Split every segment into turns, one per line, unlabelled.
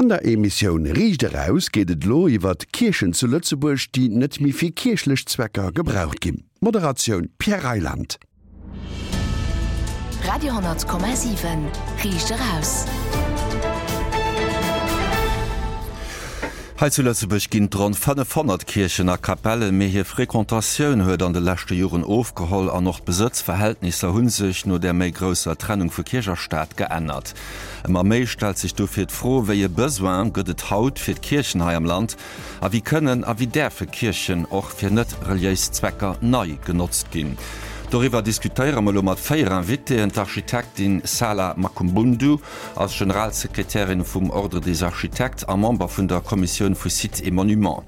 An der Emissioun Riicht eraus geet et elo iwwert Kierchen zu Lëtzebuerg, déi net méi fir kierchlech Zwecker gebraucht ginn. Moderatioun Pierre Reyland.
Radio,7 Riicht eraus.
Hei zu Lëtzebuerg ginn et ronn 500 Kierchen a Kapellen, mee hir Frequentatioun huet an de leschte Joren ofgeholl an och d'Besëtzverhältnisser hu sech no der méi grousser Trennung vu Kierch a Staat geännert. Ëmmer méi stellt sech dofir d'Fro, Wéi e Besoin gëtt et haut fir d'Kierchen hei am Land a wéi kënnen a wéi däerfe Kierchen och fir net reliéis Zwecker nei genotzt ginn? Doriwwer diskutéiere mer elo mat 4 Invitéen, D'Architektin Sala Makumbundu ass Generalsekretärin vum Ordre des Architectes a Member vun der Kommissioun vu Sites et Monuments.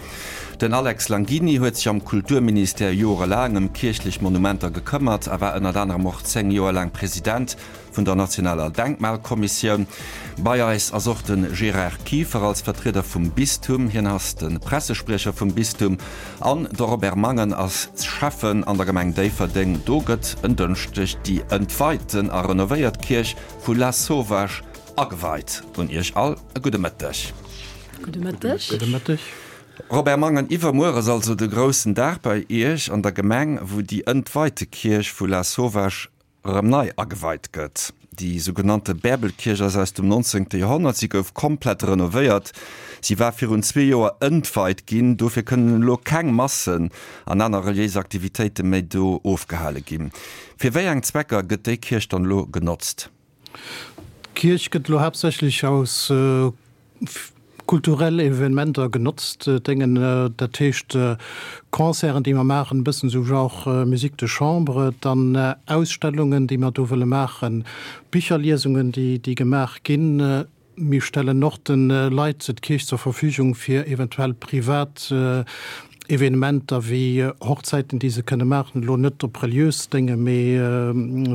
Den Alex Langini huet sech am Kulturministère jorelaang ëm kierchlech Monumenter gekëmmert a war ënnert anerem och 10 Joer laang President Vun der nationaler Denkmalkommissioun. Bei eis ass och de Gérard Kieffer als Vertrieder vum Bistum. Hien ass de Pressespriecher vum Bistum. An de Robert Mangen ass Schäffen an der Gemeng Déifferdeng. Do gëtt en Dënschdeg déi entweiten a renovéiert Kierch vu Lasauvage ageweit. Un Iech all e gudde Mëtteg.
Gudde Mëtteg.
Gudde Mëtteg.
Robert Mangen, Iwwermuer ass also de groussen Dag bei Iech an der Gemeng, wou déi entweite Kierch vu Lasauvage erëm nei ageweit gëtt. Déi sougenannte Bäerbelkierch ass aus dem 19. Joerhonnert. Si gouf komplett renovéiert. Si war virun zwee Joer entweit ginn. Dofir kënnen elo keng Massen an aner reliéis Aktivitéite méi do ofgehale ginn. Fir wéi eng Zwecker gëtt déi Kierch dann elo genotzt?
D'Kierch gëtt elo haaptsächlech aus kulturell Evenementer genotzt, déngen, dat heescht Concerten, déi mer maachen, e bëssen esou genre Musique de chambre, dann Ausstellungen, déi mer do wëlle maachen, Bicherliesungen, déi gemaach ginn. Mir stellen och de Leit d'Kierch zur Verfügung fir eventuell privat Evenementer wéi Hochzäiten, déi se kënne maachen, elo net op reliös Dénge, mee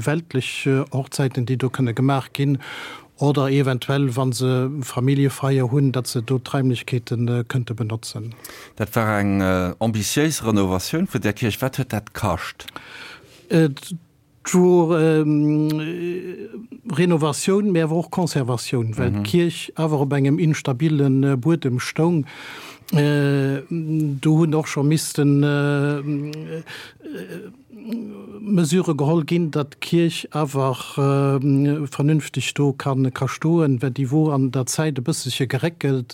weltlech Hochzäiten, déi do kënne gemaach ginn. Oder eventuell, wa se Familljefeier hunn, datt se do d'Raimlechkeete kënnte benotzen.
Dat war eng ambitiéis Renovatioun vun där Kierch. Wat huet dat kascht?
Et wor Renovatioun, mee awer och Conservatioun, well d'Kierch awer op engem instabile Buedem stoung. Do hunn och scho missten Mesure geholl ginn, datt d'Kierch awer vernünfteg do ka stoen, well déi wor an der Zäit e bësselche geréckelt,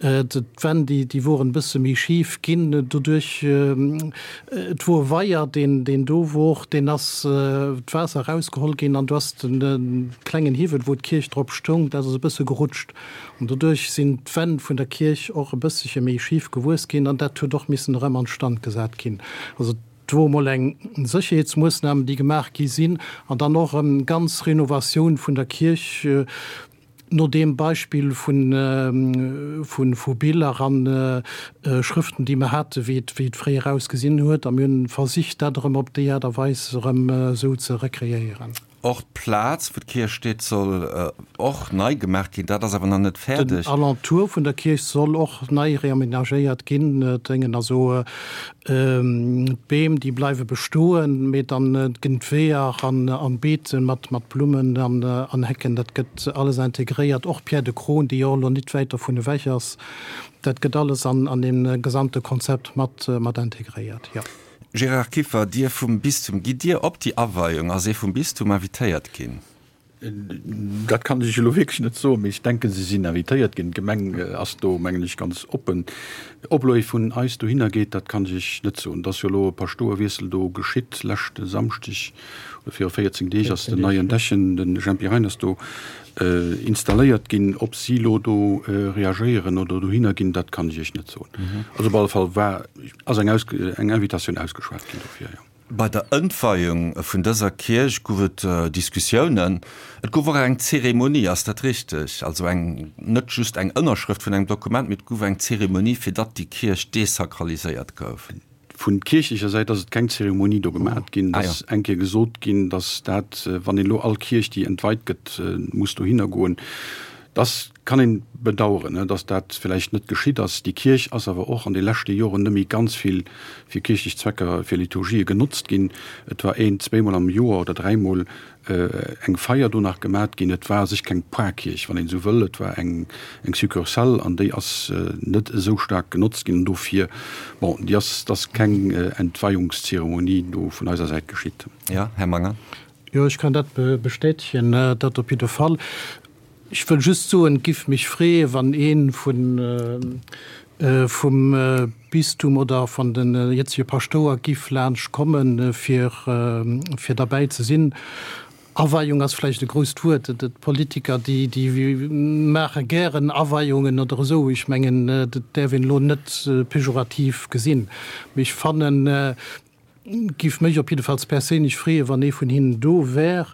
d'Wänn déi woren e bësse méi schif ginn doduerch. Et wor e Weier deen do wor, deen ass d'Waasser erausgeholl ginn an do ass de klengen Hiwwel wou d'Kierch drop stoung, dat ass e bësse gerutscht an doduerch sinn d'Wänn vun der Kierch och e bësselche méi schif gewuess ginn an dat huet och missen erëm an Stand gesat ginn. Also Et wor emol eng Sécherheetsmoosnam, déi gemaach gi sinn, an dann och erëm ganz Renovatioun vun der Kierch no deem Beispill vu Biller a Schrëften, déi mer haten, wéi et fréier ausgesinn huet. A mir hunn versicht, dat erëm op déi Aart a Weis erëm esou ze rekreéieren.
Och d'Plaz, wou d'Kierch steet, soll och nei gemaach ginn. Dat ass awer nach net fäerdeg.
Den Alentour vun der Kierch soll och nei reamenagéiert ginn. Déngen also d'Beem, déi bleiwe bestoen, mee dann ginn d'Weeër an d'Beete mat Blummen an Hecken, dat gëtt alles integréiert. Och d'Pierre de Crosne, déi jo och elo nit wäit dovun ewech ass, dat gëtt alles an deem gesamte Konzept mat integréiert, jo.
Gérard Kieffer, Dir vum Bistum, gitt Dir op déi Aweiung? Ass ee vum Bistum invitéiert ginn?
Dat kann ech elo wierklech net soen, mee ech denken, se sinn invitéiert ginn. D'Gemeng ass do, mengen ech, ganz oppen. Ob elo ee vun eis dohinner geet, dat kann ech Iech net soen. Et ass jo elo e Paschtouerwiessel do geschitt, leschte Samschdeg oder viru 14 Deeg ass den neien Dechen, de Jempy Reiners, do installéiert ginn. Ob si elo do reagéieren oder dohinner ginn, dat kann ech Iech net soen. Also op alle Fall war, ass eng eng Invitatioun ausgeschwat ginn dofir, jo.
Bei der Ëntweiung vun dëser Kierch gouf et Diskussiounen. Et gouf och eng Zeremonie, ass dat richteg? Also eng, net just eng Ënnerschrëft vun engem Dokument, mee et gouf eng Zeremonie, fir datt déi Kierch desakraliséiert gouf.
Vun kierchlecher Säit ass et keng Zeremonie do gemat ginn. Et ass eng Kéier gesot ginn, datt dat, wann een elo all Kierch, déi entweit gëtt, muss dohinner goen, dass. Kann een bedaueren, dass dat villäicht net geschitt ass. Déi Kierch ass awer och an de leschte Joren net méi ganz vill fir kierchlech Zwecker, fir Liturgië genotzt ginn. Et war een, zweemol am Joer oder dräimol eng Feier do nach gemat ginn. Et war a sech keng Parkierch, wann een esou wëll. Et war eng eng Succursale an déi ass net esou staark genotzt ginn. An dofir, bon, déi ass, et ass keng Entweihungszeremonie do vun eiser Säit geschitt.
Jo, Här Mangen.
Jo, ech kann dat bestätegen, dat op jidde Fall. Ech wëll just soen, et giff mech freeë wann ee vum Bistum oder van de jetzege Paschtouer giff laanscht kommen, fir derbäi ze sinn. Aweiung ass vläicht e grousst Wuert. D'Politiker, déi maache gären Aweiungen oder esou. Ech mengen, dat däerf een elo net pejorativ gesinn. Mee ech fannen, Giff mech op jiddefalls perséinlech freeën, wann ee vun hinnen do wär.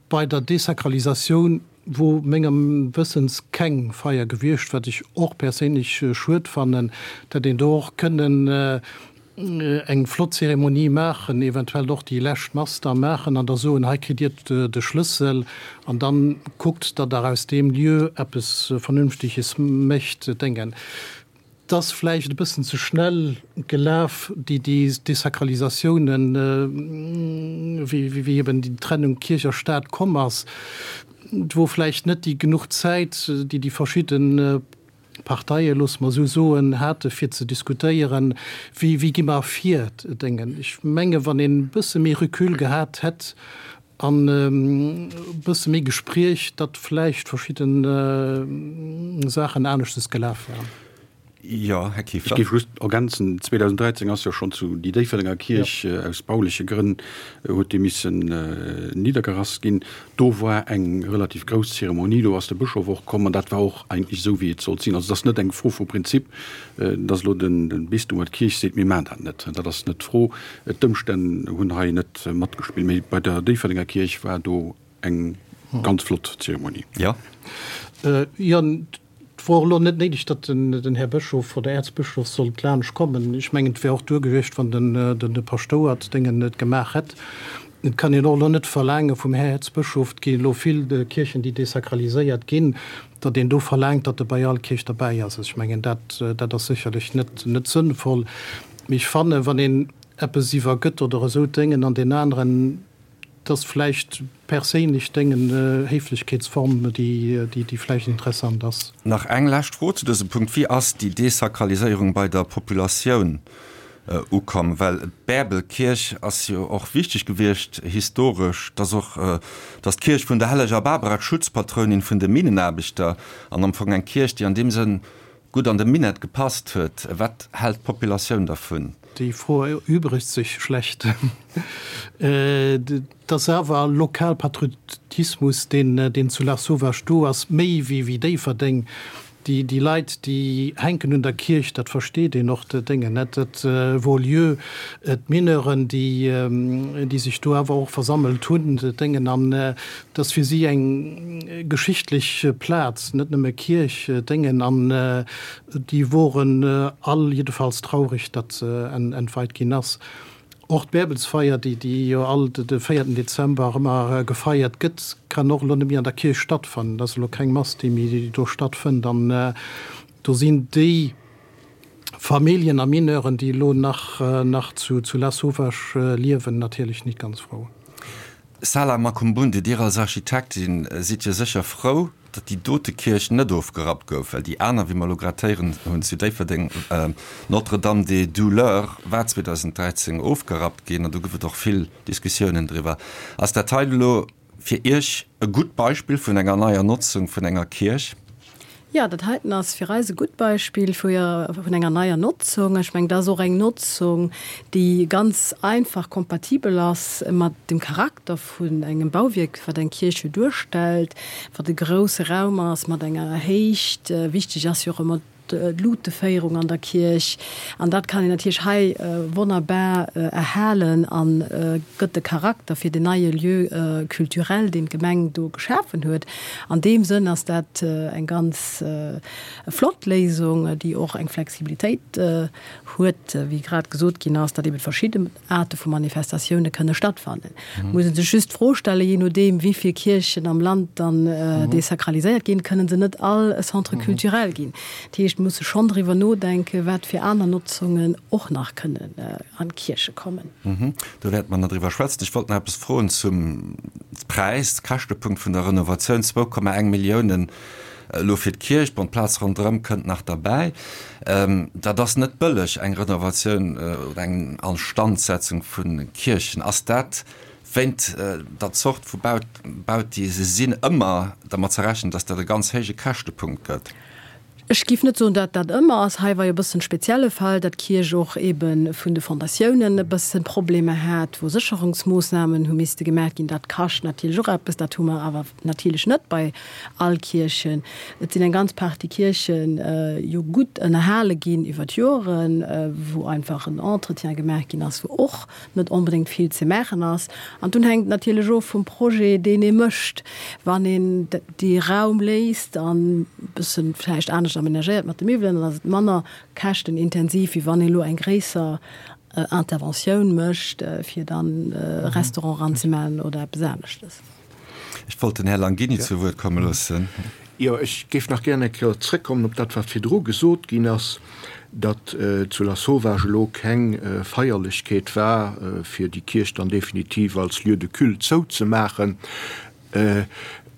Bei der Desakralisatioun wor mengem Wëssens keng Feier gewiescht, wat ech och perséinlech schued fannen. Et hätt een do och kënnen eng flott Zeremonie maachen, eventuell och déi lescht Mass da maachen an da soen, hei kritt dir de Schlëssel an dann kuckt, datt der aus deem Lieu eppes Vernünftiges mécht. Denken. 't ass vläicht e bëssen ze schnell gelaf, déi Desakralisatiounen, wéi eben déi Trennung Kierch a Staat komm ass. Et wor vläicht net déi genuch Zäit, déi déi verschidde Parteien, loosse mer esou soen, hate fir ze diskutéieren, wéi gi mer vir. Ech menge wann een e bësse méi Recul gehat hätt, An e bësse méi Gespriech, datt vläicht verschidde Saachen aneschtes gelaf wären.
Jo, Här Kieffer.
Ech géif just ergänzen, 2013 ass jo schonn zu déi Déifferdenger Kierch aus bauleche Grënn huet déi missen niddergerass ginn. Do war eng relativ grouss Zeremonie, do ass de Bëschof och komm an dat war och eigentlech esou wéi et sollt sinn. Also et ass net eng Fro vu Prinzip, datt elo de Bistum oder d'Kierch seet, mir maachen dat net. Dat ass net d'Fro. D'Ëmstänn hunn hei net matgespillt, mee bei der Déifferdenger Kierch war do eng ganz flott Zeremonie.
Jo.
Jo, et wor elo net néideg, datt den Här Bëschof oder Äerzbëschof sollt laanscht kommen. Ech mengen, et wär och duer gewiescht, wann de Paschtouer d'Déngen et gemaach hätt. Et kann een och elo net verlaange vum Här Äerzbëschof, et gi elo vill Kierchen, déi desakraliséiert ginn, datt een do verlaangt, datt e bei all Kierch derbäi ass. Ech mengen, dat, dat ass sécherlech net, net sënnvoll. Mee ech fannen, wann een eppes iwwergëtt oder esou Déngen an deen aneren, et ass vläicht perséinlech Déngen, Héiflechkeetsform, déi, déi vläicht interessant ass.
Nach eng lescht Fro zu dësem Punkt, Wéi ass déi Desakraliséierung bei der Populatioun ukomm? Well d'Bäerbelkierch ass jo och wichteg gewiescht historesch, dass och, dass d'Kierch vun der Helleger Barbara, d'Schutzpatrounin vun de Minnenaarbechter, an am Fong eng Kierch, déi an deem Sënn gutt an de Minett gepasst huet. Wat hält d'Populatioun dervun?
Déi Fro erübregt sech schlecht. Et ass awer Lokalpatriotismus, deen zu Lasauvage do ass, méi wéi Déifferdeng. Déi Leit, déi hänken un der Kierch, dat versteet een och, Déngen net. Et wor lieu d'Mineuren, déi sech do awer och versammelt hunn, Déngen. An et ass fir si eng geschichtlech Plaz, net nëmme Kierch, Déngen. An déi woren all jiddefalls traureg, datt se entweit ginn ass. Och d'Bäerbelsfeier, déi jo all de véierten Dezember ëmmer gefeiert gëtt, kann och elo net méi an der Kierch stattfannen. Et ass elo keng Mass, déi méi do stattfënnt. An do sinn déi Familljen a Mineuren, déi elo nach zu Lasauvage liewen, natierlech nit ganz frou.
Sala Makumbunde, Dir als Architektin sidd jo sécher frou, datt déi dote Kierch net ofgerappt gouf, well déi aner, wéi mer elo grad héieren hunn, zu Déifferdeng, Notre-Dame des Douleurs, war 2013 ofgerappt ginn an do gouf et och vill Diskussiounen driwwer. Ass dat hei elo fir Iech e gutt Beispill vun enger neier Notzung vun enger Kierch?
Jo, dat heiten ass fir eis e gutt Beispill vu vun enger neier Notzung. Ech mengen, dat ass och eng Notzung, déi ganz einfach kompatibel ass mat dem Charakter vun engem Bauwierk, wat eng Kierch jo duerstellt, wat e grousse Raum ass mat enger Héicht. Wichteg ass jo och ëmmer. d'Luteféierung an der Kierch. An dat kann een natierlech hei wonnerbar erhalen a gëtt de Charakter fir den neie Lieu culturel, deen d'Gemeng do geschafen huet. An deem Sënn ass dat eng ganz flott Léisung, déi och eng Flexibilitéit huet, wéi grad gesot ginn ass, datt eben verschidde Aarte vu Manifestatioune kënne stattfannen. Et muss ee sech just d'Fro stellen, jee nodeem wéi vill Kierchen am Land dann desakraliséiert ginn, kënnen se net all e Centre culturel ginn. Dat heescht, et muss e schonn driwwer nodenken, wat fir aner Notzungen och nach kënnen an d'Kierche kommen.
Do wäerte mer nach driwwer schwätzen. Ech wollt nach eppes froen zum Präis, Käschtepunkt vun der Renovatioun, 2,1 Milliounen Elo fir d'Kierch, bon d'Plaz ronderëm kënnt nach derbäi. Dat ass net bëlleg, eng Renovatioun oder eng Instandsetzung vu Kierchen. Ass dat wéint der Zort vu Baut, déi se sinn, ëmmer dermat ze rechnen, datt dat e ganz héije Käschtepunkt gëtt?
Ech géif net soen, datt dat ëmmer ass. Hei war jo e bëssen spezielle Fall, datt d'Kierch och eebe vun de Fondatiounen e bësse Problemer hat, wou Sécherungsmoossnamen hu misste gemaach ginn. Dat kascht natierlech och eppes. Dat hu mer awer natierlech net bei all Kierchen. Et sinn eng ganz Partie Kierche jo gutt ënnerhale ginn iwwer d'Joren, wou einfach en Entretien gemaach ginn ass, wou och net onbedéngt vill ze maachen ass. An dunn hänkt et natierlech of vum Projet, deen ee mécht. Wann een dee Raum léisst an e bësse vläicht anescht amenagéiert mat de Miwwelen, dann ass et manner käschtenintensiv, wéi wann ee elo eng gréisser Interventioun mécht, fir dann e Restaurant eranzemaachen oder eppes aneschtes.
Ech wollt den Här Langini zu Wuert komme loossen.
Jo, ech géif nach gären eng Kéier zrëckkommen op dat, wat virdru gesot ginn ass, datt zu Lasauvage elo keng Feierlechkeet war, fir déi Kierch dann definitiv als Lieu de culte zouzemaachen.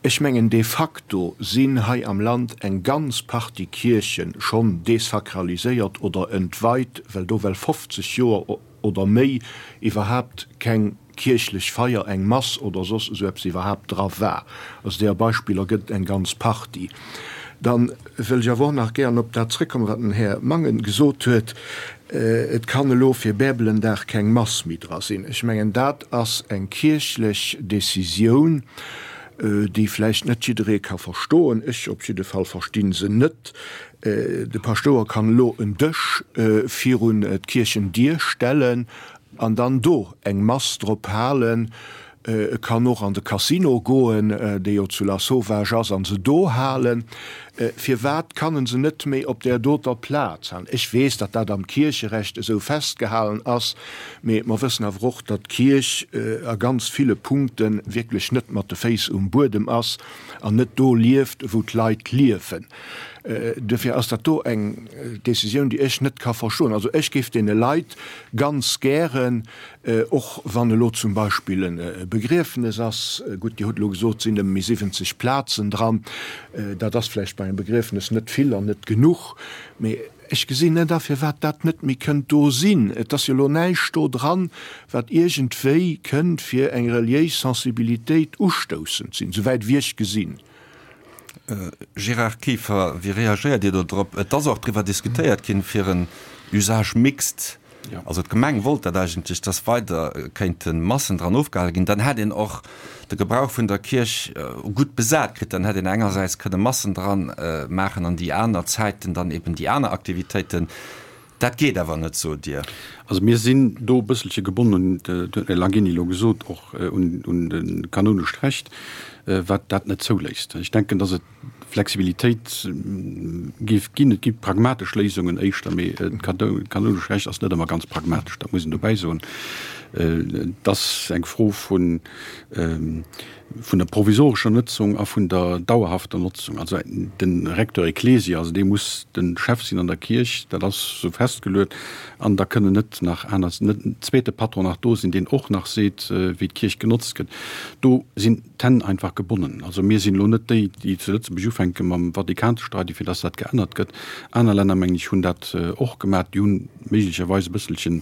Ech mengen, de facto sinn hei am Land eng ganz Partie Kierche schonn desakraliséiert oder entweit, well do well 50 Joer oder méi iwwerhaapt keng kierchlech Feier, eng Mass oder soss esou eppes iwwerhaapt dra war. Also deeër Beispiller gëtt et eng ganz Partie. Da wëll ech awer och nach gären op dat zrëckkommen, wat den Här Mangen gesot huet, Et kann elo fir Bärbelendag keng Mass méi dra sinn. Ech mengen, dat ass eng kierchlech Décisioun, déi vläicht net jidderee ka verstoen. Ech op jidde Fall versti se net. De Paschtouer kann elo en Dësch virun d'Kierchendier stellen an dann do eng Mass drop halen. E kann och an de Casino goen, dee jo zu Lasauvage ass, an se do halen. Firwat kann en se net méi op där doter Plaz halen? Ech weess, datt dat am Kiercherecht esou festgehalen ass, mee mer wëssen awer och, datt d'Kierch a ganz ville Punkte wierklech net mat de Féiss um Buedem ass an net do lieft, wou d'Leit liewen. Duerfir ass dat do eng Décisioun, déi ech net ka verstoen. Also ech géif deene Leit ganz gären, och wann elo zum Beispill e Begriefnes ass, gutt, Dir hutt elo gesot, et sinn nëmme méi 70 Plazen dran, dat ass vläicht bei engem Begriefnes net vill an net genuch, mee ech gesinn net a firwat dat net méi kënnt do sinn. Et ass jo elo näischt do dran, wat iergendwéi kënnt fir eng reliéis Sensibilitéit ustoussend sinn, souwäit wéi ech gesinn.
Gérard Kieffer, wéi reagéiert Dir do drop? Et ass och driwwer diskutéiert ginn, fir en Usage mixte, also d'Gemeng wollt dat eigentlech, dass weider kéinte Massen dran ofgehale ginn. Dann hätt een och de Gebrauch vun der Kierch gutt besat kritt. Dann hätt een engersäits kënne Massen dran maachen an déi aner Zäiten dann eben déi aner Aktivitéiten. Dat geet awer net, sot Dir.
Also mir sinn do e bësselche gebonnen, dat huet den Här Langini elo gesot, och un de kanonescht Recht, wat dat net zouléisst. Ech denken, datt et Flexibilitéit géif ginn. Et gi pragmatesch Léisungen éischter, mee dat kanonescht Recht ass net ëmmer ganz pragmatesch, dat muss een dobäi soen. Et ass eng Fro vun vun der provisorescher Notzung a vun der dauerhafter Notzung. Also de Recteur ecclesiae, also dee muss de Chef sinn an der Kierch, dat ass esou festgeluet, an da kënnen net nach aner, net en zweete Patron nach do sinn, deen och nach seet, wéi d'Kierch genotzt gëtt. Do sinn d'Hänn einfach gebonnen. Also mir sinn elo net déi, déi zu Lëtzebuerg ufänke mam Vatikan ze streiden, fir datt dat geännert gëtt. Aner Länner, mengen ech, hunn dat och gemaach. Déi hunn méiglecherweis e bësselchen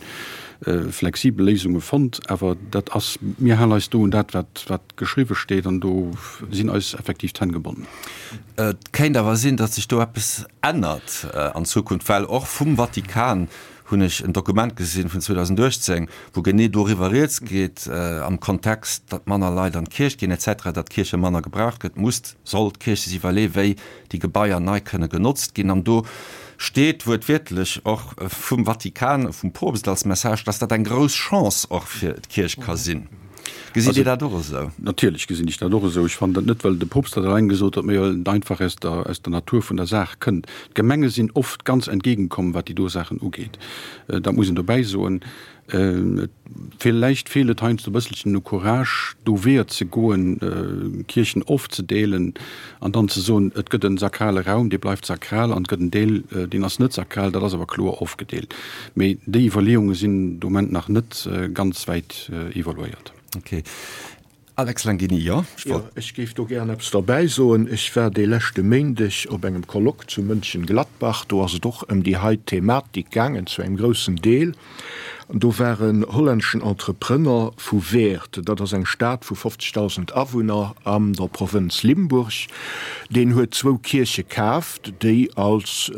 flexibel Léisunge fonnt, awer dat ass, mir halen eis do un dat, wat, wat geschriwwe steet, an do sinn eis effektiv d'Hänn gebonnen.
Et kéint awer sinn, datt sech do eppes ännert an Zukunft, well och vum Vatikan hunn ech en Dokument gesinn vun 2018, wou genee doriwwer rieds geet, am Kontext, datt manner Leit an d'Kierch ginn et cetera, datt d'Kierche manner gebraucht gëtt, muss, soll d'Kierch sech iwwerleeën, wéi déi Gebaier nei kënne genotzt ginn. An do. Steet wuertwiertlech och vum Vatikan, vum Poopst als Message, dass dat eng grouss Chance och fir d'Kierch ka sinn. Gesitt Dir dat och esou?
Natierlech gesinn ech dat och esou. Ech fannen dat net, well de Poopst dat eleng gesot huet, mee well et einfach aus der, aus der Natur vun der Saach kënnt. D'Gemenge sinn oft ganz entgegenkomm, wat déi do Saachen ugeet. Dat muss een dobäi soen. Villäicht feelt et heiansdo e bësselchen u Courage, do Weeër ze goen, Kierchen ofzedeelen an dann ze soen, et gëtt e sakrale Raum, dee bleift sakral an et gëtt en Deel, deen ass net sakral, dat ass awer kloer ofgedeelt. Mee déi Iwwerleeunge sinn de Moment nach net ganz wäit evoluéiert.
Okay. Alex Langini, Jo,
ech wollt. Jo, ech géif do gären eppes derbäi soen. Ech war dee leschte Méindeg op engem Colloque zu Mönchengladbach. Do ass et och ëm déi hei Thematik gaangen, zu engem groussen Deel. An do war en hollänneschen Entrepreneur vu Weert, dat ass eng Stad vu 50.000 Awunner an der Provënz Limburg, deen huet zwou Kierche kaaft, déi als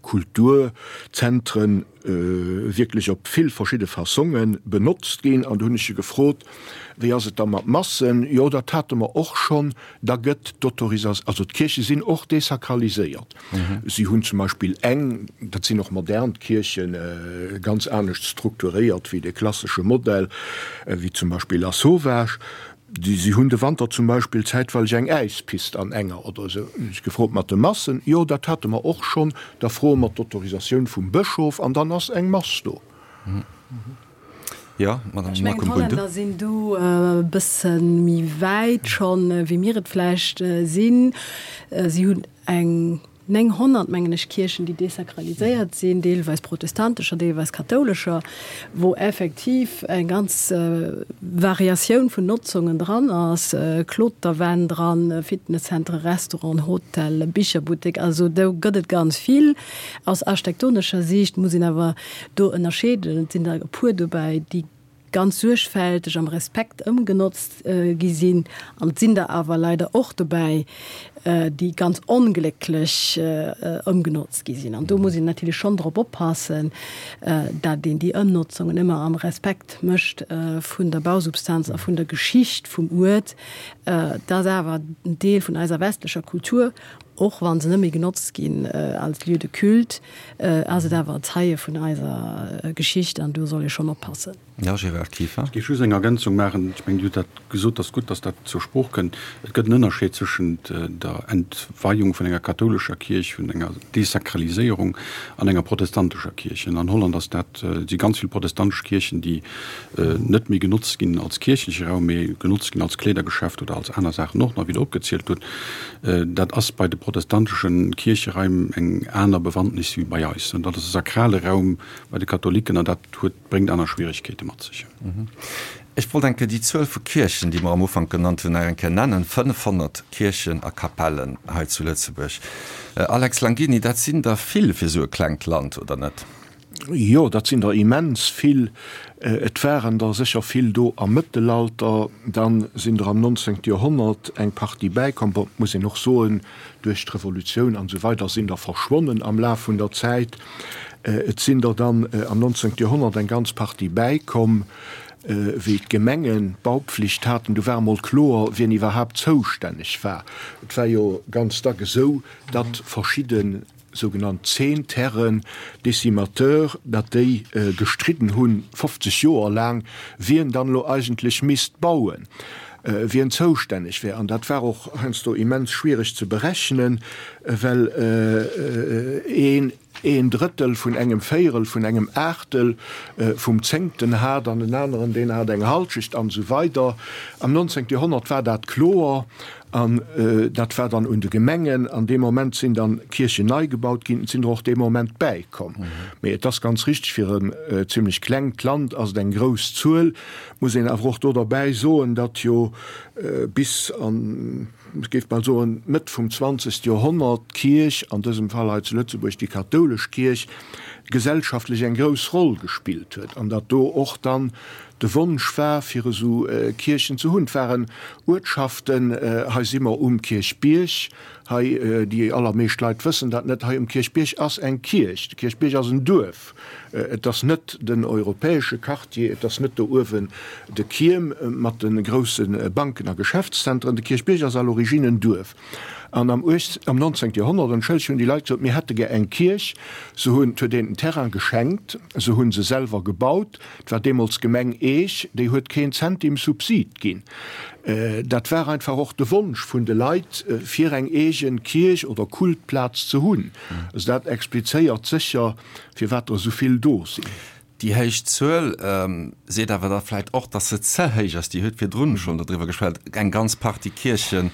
Kulturzentren wierklech op vill verschidde Fassonge benotzt ginn. An do hunn ech e gefrot, Wéi ass et da mat Massen? Jo, dat hate mer och schonn. Da gëtt d'Autorisatioun, also d'Kierche sinn och desakraliséiert. Si hunn zum Beispill eng, dat sinn och modern Kierchen, ganz anescht strukturéiert wéi de klassesche Modell, wéi zum Beispill Lasauvage. Si hunn de Wanter zum Beispill zäitweileg eng Äispist an enger oder esou. Hunn ech gefrot mat de Massen. Jo, dat hate mer och schonn. Da froe mer d'Autorisatioun vum Bëschof an dann ass eng Mass do.
Jo, Madame
Ech mengen, d'Hollänner sinn do e bësse méi wäit schonn, wéi mir et vläicht sinn. Si hunn eng 900, mengen ech, Kierchen, déi desakraliséiert sinn, deelweis protestantescher, deelweis kathoulescher, wou effektiv eng ganz Variatioun vun Notzungen dran ass, Kloterwänn dran, Fitnesszentere, Restauranten, Hotel, Bicherbuttek, also do gëtt et ganz vill. Aus architektonescher Siicht muss een awer do ënnerscheeden. Et sinn der e puer dobäi, déi ganz suergfälteg am Respekt ëmgenotzt gi sinn, an et sinn der awer leider och dobäi, déi ganz onglécklech ëmgenotzt gi sinn. An do muss een natierlech schonn drop oppassen, dat een déi Ëmnotzungen ëmmer am Respekt mécht vun der Bausubstanz a vun der Geschicht vum Uert. Dat ass awer en Deel vun eiser westlecher Kultur, och wa se net méi genotzt ginn als Lieu de culte. Ass et awer e Zeie vun eiser Geschicht an do soll ee schonn oppassen.
Jo, Gérard Kieffer.
Ech géif just eng Ergänzung maachen. Ech mengen, Dir hutt dat gesot, et ass gutt, datt dat zur Sprooch kënnt. Et gëtt en Ënnerscheed zwëschent der Entweiung vun enger kathoulescher Kierch, vun enger Desakraliséierung an enger protestantescher Kierch. An Holland ass dat, si ganz vill protestantesch Kierchen, déi net méi genotzt ginn als kierchleche Raum, mee genotzt ginn als Kleedergeschäft oder als aner Saachen och nach, wéi Der opgezielt hutt. Dat ass bei de protestantesche Kiercheraim eng aner Bewandtnis wéi bei eis. Dat ass e sakrale Raum bei de Katholiken an dat huet, bréngt aner Schwieregkeete mat sech.
Ech wollt eng Kéier déi Zuel vu Kierchen, déi mer am Ufank genannt hunn, nach eng Kéier nennen, 500 Kierchen a Kapellen hei zu Lëtzebuerg. Alex Langini, dat sinn der vill fir esou e klengt Land, oder net?
Jo, dat sinn der immens vill. Et waren der sécher vill do am Mëttelalter, dann sinn der am 19. Joerhonnert eng Partie bäikomm. Bon, et muss een och soen, duerch d'Revolutioun an esou weider sinn der verschwonnen am Laf vun der Zäit. Et sinn der dann am 19. Joerhonnert eng ganz Partie bäikomm, wéi d'Gemengen d'Baupflicht haten. Du war emol kloer, wien iwwerhaapt zoustänneg war. Et war jo ganz dack esou, datt verschidde sougenannt Zehnterren, Décimateurs, datt déi gestridden hunn, 50 Joer laang, wien dann elo eigentlech misst bauen, wien zoustänneg wär. An dat war och heiansdo immens schwiereg ze berechnen, well een een Drëttel vun engem Véierel vun engem Aachtel vum Zéngten hat an en aneren, deen hat eng Halschecht an esou weider. Am 19. Joerhonnert war dat kloer. An dat war dann un de Gemengen. An dee Moment sinn dann Kierchen nei gebaut ginn. Et sinn der och dee Moment bäikomm. Mee et ass ganz richteg, fir en zimlech klengt Land ass et eng grouss Zuel. Muss een awer och do derbäi soen, datt jo bis an, ech géif bal soen, d'Mëtt vum zwanzegste Joerhonnert d'Kierch, an dësem Fall hei zu Lëtzebuerg déi kathoulesch Kierch, gesellschaftlech eng grouss Roll gespillt huet an datt do och dann De Wonsch war, fir esou Kierchen ze hunn. Et waren Uertschaften, hei si mer um Kierchbierg. Hei, déi allermeescht Leit wëssen dat net, hei um Kierchbierg ass eng Kierch. De Kierchbierg ass en Duerf. Et ass net den europäesche Quartier, et ass net do uewen de Kierm mat de grousse Banken a Geschäftszentren. De Kierchbierg ass à l'origine en Duerf. An am am 19. Joerhonnert, entschëllegt, hunn déi Leit gesot, mir hätte gär eng Kierch. Se hunn, et huet een den Terrain geschenkt, se hu se selwer gebaut. Et war deemools d'Gemeng Eech, déi huet keen Zentim Subsid ginn. Dat war einfach och de Wonsch vun de Leit, fir eng eegen Kierch oder Kultplaz ze hunn. Also dat explizéiert sécher, firwat der esou vill do sinn.
Déi héich Zuel seet awer da vläicht och, datt se ze héich ass. Dir hutt virdrun schonn dodriwwer geschwat, eng ganz Partie Kierche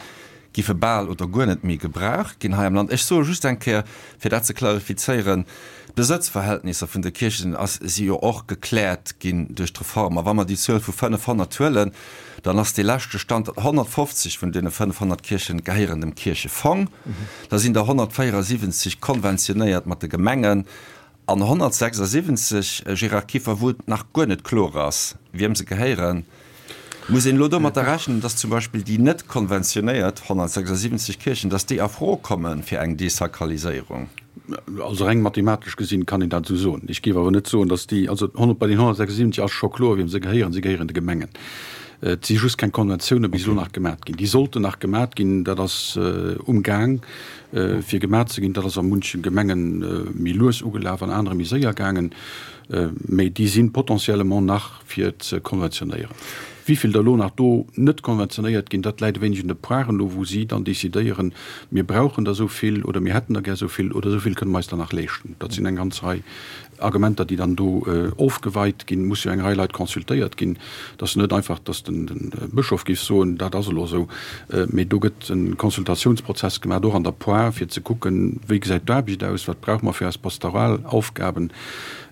giffe bal oder guer net méi gebraucht ginn hei am Land. Ech soe just eng Kéier, fir dat ze klarifizéieren, D'Besëtzverhältnisser vun de Kierchen ass si jo och gekläert ginn duerch d'Reform. A wa mer déi Zuel vu 500 huelen, dann ass dee leschte Stand, datt 150 vun deene 500 Kierchen gehéieren dem Kierchefong, da sinn der 174 konventionéiert mat de Gemengen an 176, Gérard Kieffer, wou et nach guer net kloer ass, wiem se gehéieren. Muss een elo domatter rechnen, dass zum Beispill déi net konventionéiert 176 Kierchen, dass déi a Fro komme fir eng Desakraliséierung?
Also reng mathematesch gesinn kann een dat esou soen. Ech géif awer net soen, dass déi, also bei den 176 ass scho kloer, wiem se gehéieren. Se gehéieren de Gemengen. Et si just keng Konventioune bis elo nach gemat ginn. Déi sollten nach gemat ginn. Dat ass um Gaang fir gemat ze ginn. Dat ass a munche Gemenge méi lues ugelaf, an anere méi séier gaangen. Mee déi si potentiellement nach fir ze konventionéieren. Wivill der elo nach do net konventionéiert ginn, dat läit e wéineg un de Poiren elo, wou si dann decidéieren, mir brauchen der esou vill oder mir hätten der gär esou vill oder esou vill kënne mer eis der nach leeschten. Dat sinn eng ganz Rei Argumenter, déi dann do ofgeweit ginn. Et muss jo eng Rei Leit consultéiert ginn. Et ass jo net einfach, datt de Bëschof géif soen, dat ass elo esou, mee do gëtt e Consultatiounsprozess gemaach, och an der Poire, fir ze kucken, wéi gesäit d'Aarbecht aus, wat brauche mer fir eis pastoral Aufgaben.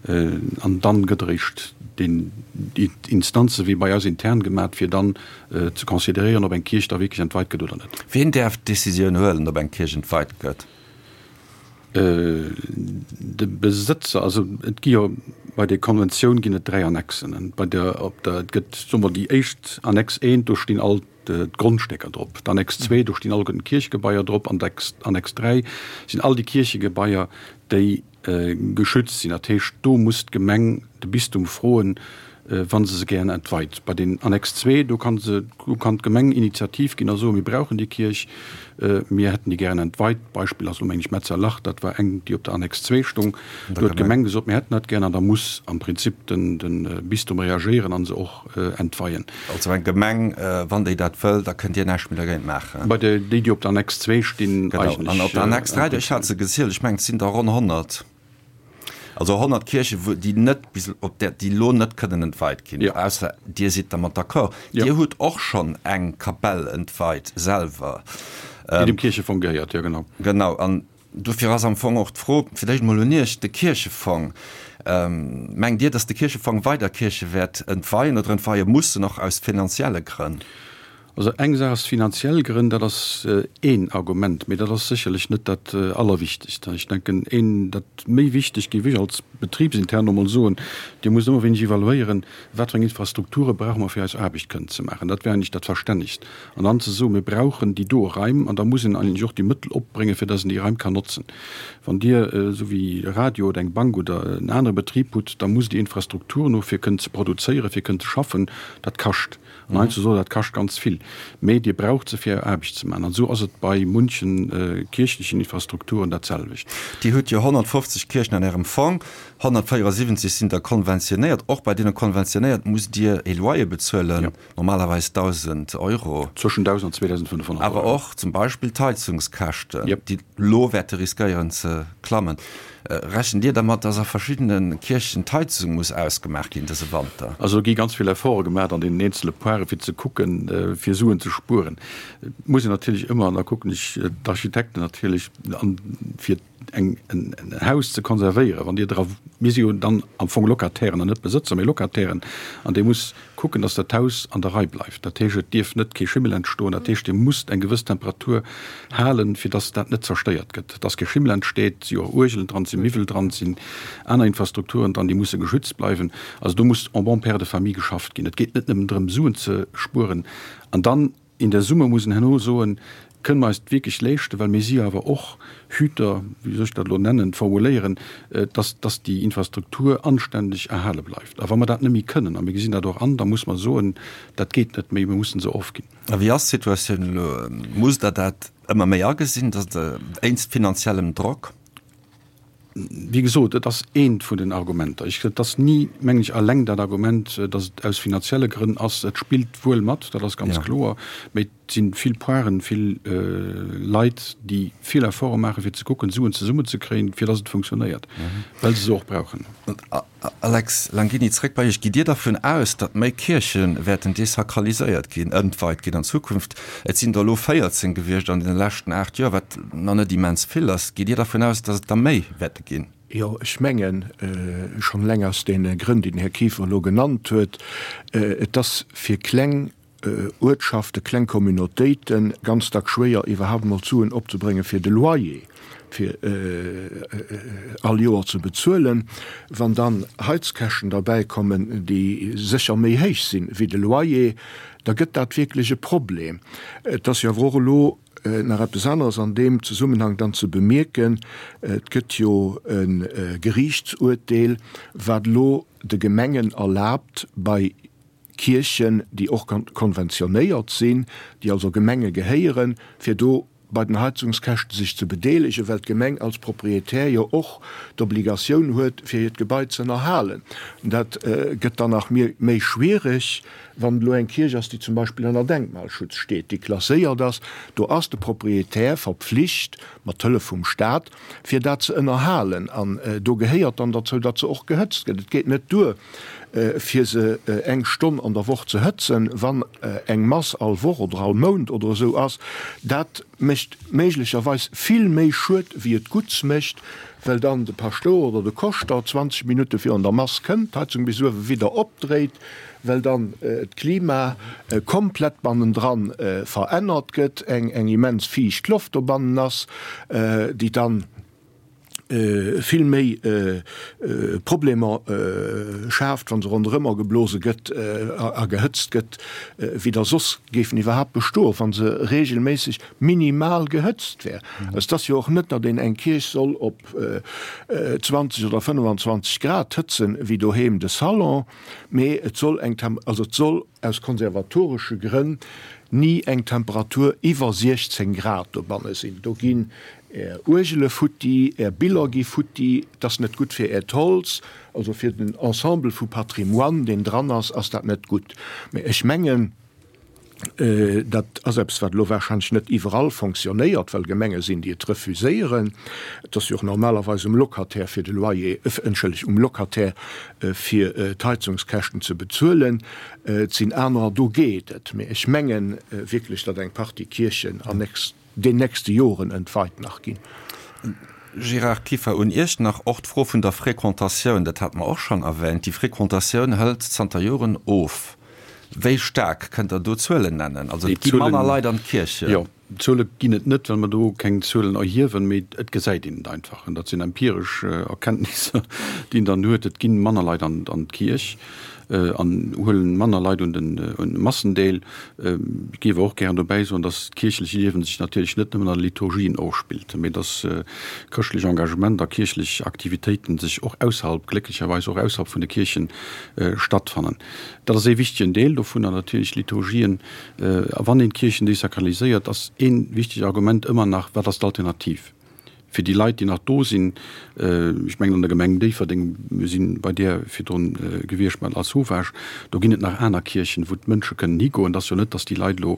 An dann gëtt eréischt déi Instanze wéi bei eis intern gemat, fir dann ze consideréieren, ob eng Kierch da wierklech entweit gëtt oder net.
Wien däerf d'Decisioun huelen, ob eng Kierch entweit gëtt?
De Besëtzer. Also et gi jo bei der Konventioun ginn et 3 Annexen. Bei der, op der, et gëtt, soe mer, déi éischt Annex 1, do stinn all d'Grondstécker drop. D'Annex 2, do stinn alleguerten d'Kierchegebaier drop. An d'Annex 3 sinn all déi Kierchegebaier, déi geschützt sinn. Dat heescht, do muss d'Gemeng de Bistum froen, wa se se gären entweit. Bei den Annex 2, do kann se, do kann d'Gemeng Initiativ ginn a soen, mir brauchen déi Kierch, mir hätten déi gären entweit. Beispill ass elo meng ech Metzerlach, dat war eng, déi op der Annex 2 stung. Do huet d'Gemeng gesot, mir hätten dat gären an da muss am Prinzip den Bistum reagéieren a se och entweien.
Also eng Gemeng, wann déi dat wëll, da kënnt Dir näischt méi dergéint maachen.
Bei déi, déi op der Annex 2 stinn,
eigentlech. Genau. An op der Annex 3, ech hat se gezielt, ech mengen, et sinn der ronn 100. Also 100 Kierchen, wou déi net bis op där, déi elo net kënnen entweit ginn, ausser Dir sidd dermat d'accord. Dir hutt och schonn eng Kapell entweit selwer.
Déi dem Kierchefong gehéiert, jo genau.
Genau. An Dofir ass am Fong och d'Fro fir d'éischt emol un Iech, de Kierchefong, Mengt Dir, datt de Kierchefong weider Kierche wäert entweien oder entweie mussen, och aus finanzielle Grënn?
Also eng Saach ass finanziell Grënn, dat ass een Argument, mee dat ass sécherlech net dat Allerwichtegst. Ech denken, een, dat méi wichteg géif ech als betribsintern emol soen, Dir musst ëmmer wéineg evaluéieren, wat fir eng Infrastrukture brauche mer fir eis Aarbecht kënnen ze maachen. Dat wär eigentlech dat Verstännegst. An dann ze soen, mir brauchen déi do Raim, an da muss een eigentlech och déi Mëttel opbréngen, fir dass een déi Raim kann notzen. Wann Dir, esou wéi e Radio oder eng Bank oder en anere Betrib hutt, da musst Dir Infrastrukturen hu fir kënnen ze produzéieren, fir kënnen ze schaffen. Dat kascht. An heiansdo soe, dat kascht ganz vill. Mee Dir braucht se, fir Är Aarbecht ze maachen. An esou ass et bei munche kierchlechen Infrastrukturen dat selwecht.
Dir hutt jo 150 Kierchen an Ärem Fong, 174 sinn der konventionéiert. Och bei deene konventionéiert musst Dir e Loyer bezuelen. Normalerweis 1.000 Euro.
Zwëschen 1.000 an 2.500 Euro.
Awer och zum Beispill d'Heizungskäschten, déi elo wäerte riskéieren ze klammen. Rechent Dir dermat, dass a verschiddene Kierchen d'Heizung muss ausgemaach ginn dëse Wanter?
Also do gi ganz vill Efforte gemaach an deenen eenzele Poiren, fir ze kucken, fir Suen ze spueren. Et muss een natierlech ëmmer, an da kucken ech d'Architekten natierlech an, fir eng en Haus ze konservéieren, wann Dir dra, mir si jo dann am Fong Locatairen an net Besëtzer, mee Locatairen, an Dir musst kucken, dass dat Haus an der Rei bleift. Dat heescht, et dierf net kee Schimmel entstoen. Dat heescht, Dir musst eng gewëss Temperatur halen, fir dass dat net zerstéiert gëtt, dass kee Schimmel entsteet. Et si jo och Uergelen dran, et si Miwwel dran, et sinn aner Infrastrukturen dran, déi musse geschützt bleiwen. Also do muss en bon père de famille geschafft ginn. Et geet net nëmmen drëm, Suen ze spueren an dann, In der Summe muss een herno soen, Kënne mer eis et wierklech leeschten, well mir si jo awer och Hüter, wéi soll ech dat elo nennen, formuléieren, dass, dass déi Infrastruktur anständeg erhale bleift. A wa mer dat net méi kënnen, a mir gesinn dat och an, da muss mer soen, dat geet net méi, mir mussen se ofginn.
A wéi ass d'Situatioun elo? Musst Der dat ëmmer méi agesinn, dass Der wéinst finanziellem Drock?
Wéi gesot, et ass eent vun den Argumenter. Ech, et ass ni, mengen ech, alleng dat Argument, datt et aus finanzielle Grënn ass. Et spillt wuel mat, dat ass ganz kloer. Mee et si vill Poiren, vill Leit, déi vill Efforte maachen, fir ze kucken, Suen zesummenzekréien, fir datt et funktionéiert, well se se och brauchen.
Alex Langini, zréck bei Iech. Gitt Dir dervun aus, datt méi Kierche wäerten desakraliséiert ginn, entweit ginn an Zukunft? Et sinn der elo 14 gewiescht an deene leschten 8 Joer, wat nach net immens vill ass. Gitt Dir dervun aus, datt et der méi wäerte ginn?
Jo, ech mengen, schonn eleng aus deene Grënn, déi den Här Kieffer elo genannt huet, et ass fir kleng Uertschaften, kleng Communautéiten ganz dack schwéier iwwerhaapt emol d'Suen opzebréngen fir de Loyer fir all Joer ze bezuelen. Wann dann Heizkäschten derbäi kommen, déi sécher méi héich sinn wéi de Loyer, da gëtt dat wierklech e Problem. Et ass jo awer och elo nach eppes aneres an deem Zesummenhang dann ze bemierken, Et gëtt jo e Geriichtsuerteel, wat elo de Gemengen erlaabt, bei Kierchen, déi och konventionéiert sinn, déi also Gemenge gehéieren, fir do bei den Heizungskäschte sech ze bedeelegen, well d'Gemeng als Proprietär jo och d'Obligatioun huet, fir hiert Gebai ze ënnerhalen. Dat gëtt dann nach méi schwierig, wann et elo eng Kierch ass, déi zum Beispill ënner Denkmalschutz steet, déi klasséiert ass. Do ass de Proprietär verpflicht, mat Hëllef vum Stat, fir dat ze ënnerhalen. An do gehéiert dann derzou, datt se och gehëtzt gëtt. Et geet net duer, fir se eng Stonn an der Woch ze hëtzen, wann eng Mass all Woch oder all Mount oder esou ass, dat mécht méiglecherweis vill méi Schued wéi et Gutts mécht, well dann de Paschtouer oder de Koschter 20 Minutte virun der Mass kënnt, d'Heizung bis uewe widder opdréit, well dann d'Klima komplett bannendran verännert gëtt, eng immens fiicht Loft dobannen ass, déi dann vill méi Problemer schaaft, wa se ronderëmmer geblose gëtt a gehëtzt gëtt, wéi der soss géifen iwwerhaapt bestoen, wa se regelméisseg minimal gehëtzt wär. Et ass jo och net, datt een eng Kierch soll op 20 oder 25 Grad hëtzen, wéi doheem de Salon, mee et soll eng, also et soll aus konservatoresche Grënn ni eng Temperatur iwwer 16 Grad dobanne sinn. Do ginn Är Uergele futti, Är Biller gi futti, et ass net gutt fir Äert Holz, also fir den Ensemble vu Patrimoine, deen dran ass, ass dat net gutt. Mä ech mengen, dat ass eppes, wat elo warscheinlech net iwwerall fonctionnéiert, well Gemenge sinn, déi et refuséieren. Et ass jo och normalerweis um Locataire fir de Loyer, entschëllegt, um Locataire fir d'Heizungskäschten ze bezuelen. Et sinn anerer, do geet et. Mä ech menge wierklech, datt eng Partie Kierchen an den nächste Joren entweit nach ginn.
Gérard Kieffer, un Iech nach och d'Fro vun der Fréquentatioun, dat hate mer och schonn erwähnt. Déi Fréquentatioun hëlt zanter Joren of. Wéi staark? Kënnt Der do Zuelen nennen? Also et gi manner Leit an d'Kierchen.
Jo, Zuele ginn et net, well mer do keng Zuelen erhiewen, mee et gesäit een et einfach. An dat sinn empiresch Erkenntnisser, déi een dann huet. Et gi manner Leit an d'Kierch an huelen manner Leit un de Massen deel. Ech géif awer och gären dobäi soen, dass d'kierchlech Liewen sech natierlech net nëmmen an de Liturgien ofspillt, mee dass chrëschtlech Engagement a kierchlech Aktivitéiten sech och ausserhalb, glécklecherweis och ausserhalb vun de Kierchen stattfannen. Dat ass ee wichtegen Deel dovunner natierlech, d'Liturgien. A wann een d'Kierchen desakraliséiert, ass ee wichtegt Argument ëmmer nach, Wat ass d'Alternativ fir déi Leit, déi nach do sinn? Ech mengen, an der Gemeng Déifferdeng, mir si bei där virdrun gewiescht mat Lasauvage, do ginn et nach aner Kierchen, wou d'Mënsche kënnen higoen. Et ass jo net, datt déi Leit elo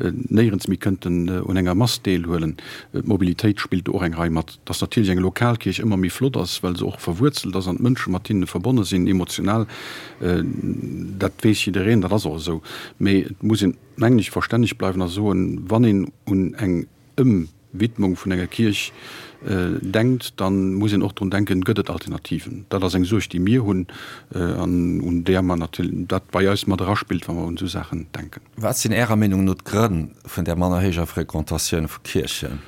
néierens méi kënnten un enger Mass deelhuelen. D'Mobilitéit spillt do och eng Rei mat. Datt natierlech eng lokal Kierch ëmmer méi flott ass, well se och verwuerzelt ass an d'Mënsche mat hinne verbonne sinn, emotional, Dat weess jiddereen, dat ass och esou. Mee et muss een, mengen ech, verstänneg bleiwen a soen, wann een un eng Ëmwidmung vun enger Kierch denkt, da muss een och drun denken, Gëtt et Alternativen? Dat ass eng Suerg, déi mir hunn an un där mer natierlech, dat bei eis mat eraspillt, wa mer un esou Saachen denken.
Wat sinn Ärer Meenung no d'Grënn vun där manner héijer Frequentatioun vu Kierchen?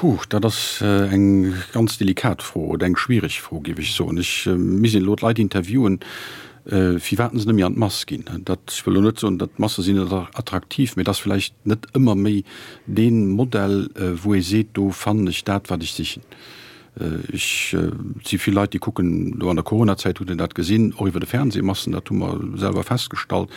Huh, dat ass eng ganz delikat Fro oder eng schwiereg Fro, géif ech soen. Ech misst elo d'Leit interviewen. Firwat se net méi an d'Mass ginn. Dat, ech wëll elo net soen, datt d'Masse sinn net attraktiv, mee et ass vläicht net ëmmer méi dee Modell, wou ee seet, do fannen ech dat, wat ech sichen. Ech, et si vill Leit, déi kucken, elo an der Coronazäit hutt een dat gesinn, och iwwer de Fernseh Massen, dat hu mer selwer festgestallt,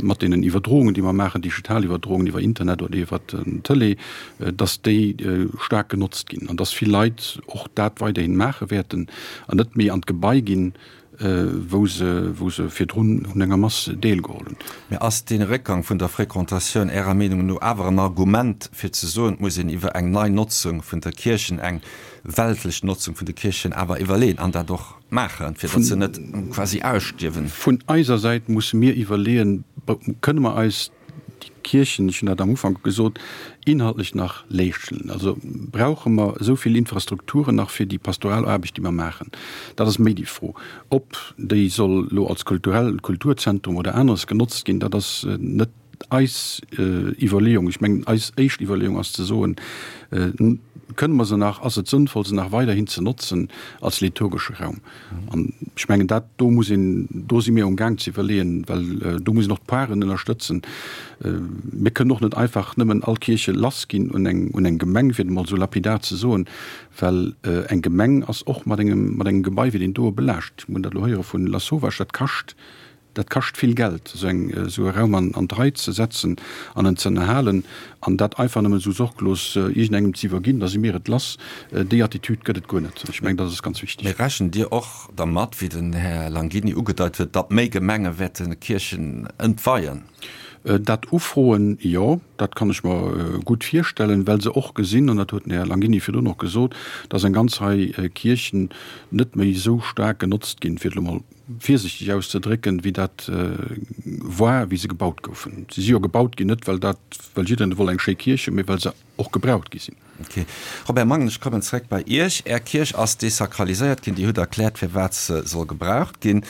mat deenen Iwwerdroungen, déi mer maachen, digital Iwwerdroungen iwwer Internet oder iwwer den Tëlee, datt déi staark genotzt ginn an datt vill Leit och dat weiderhin maache wäerten an net méi an d'Gebai ginn, wou se, wou se virdrun un enger Mass deelgeholl hunn.
Mä ass dee Réckgang vun der Fréquentatioun Ärer Meenung no awer en Argument fir ze soen, et muss een iwwer eng nei Notzung vun der Kierchen, eng weltlech Notzung vun de Kierchen awer iwwerleeën an dat och maachen, fir datt se net quasi ausstierwen?
Vun eiser Säit musse mir iwwerleeën, Kënne mer eis déi Kierchen, ech hunn dat am Ufank gesot, inhaltlech nach leeschten? Also brauche mer esou vill Infrastrukturen nach fir déi pastoral Aarbecht, déi mer maachen? Dat ass méi déi Fro. Ob déi soll elo als kulturell Kulturzentrum oder aneres genotzt ginn, dat ass net eis Iwwerleeung. Ech mengen, eis éischt Iwwerleeung ass ze soen, Kënne mer se nach, ass et sënnvoll, se nach weiderhin ze notzen als liturgesche Raum? An ech mengen, dat do muss een, do si mir um Gaang ze iwwerleeën, well do muss een och d'Paren ënnerstëtzen. Mir kënnen och net einfach nëmmen all Kierche lassginn un eng, un eng Gemeng, fir et emol esou lapidar ze soen, well eng Gemeng ass och mat engem, mat engem Gebai wéi deen doe belaascht. Mir hunn dat elo héiere vun Lasauvage, dat kascht Dat kascht vill Geld, esou eng, esou e Raum an, an d'Rei ze setzen an en ze ënnerhalen. An dat einfach nëmmen esou sorglos iergendengem ze iwwerginn, da si mir et lass, déi Attitüd gëtt et guer net. Ech mengen, dat ass ganz wichteg.
Mee rechent Dir och dermat, wéi den Här Langini ugedeit huet, datt méi Gemenge wäerte Kierchen entweien?
Dat ufroen, jo, dat kann ech mer gutt virstellen, well se och gesinn, an dat huet den Här Langini virdrun och gesot, datt eng ganz Rei Kierchen net méi esou staark genotzt ginn, fir et elo mol virsichteg auszedrécken, wéi dat war, wéi se gebaut goufen. Si si jo gebaut ginn, net well dat, well jiddereen wollt eng schéi Kierch hunn, mee well se och gebraucht gi sinn.
Ok. Robert Mangen, ech kommen zréck bei Iech. Är Kierch ass desakraliséiert ginn. Dir hutt erkläert, firwat se soll gebraucht ginn.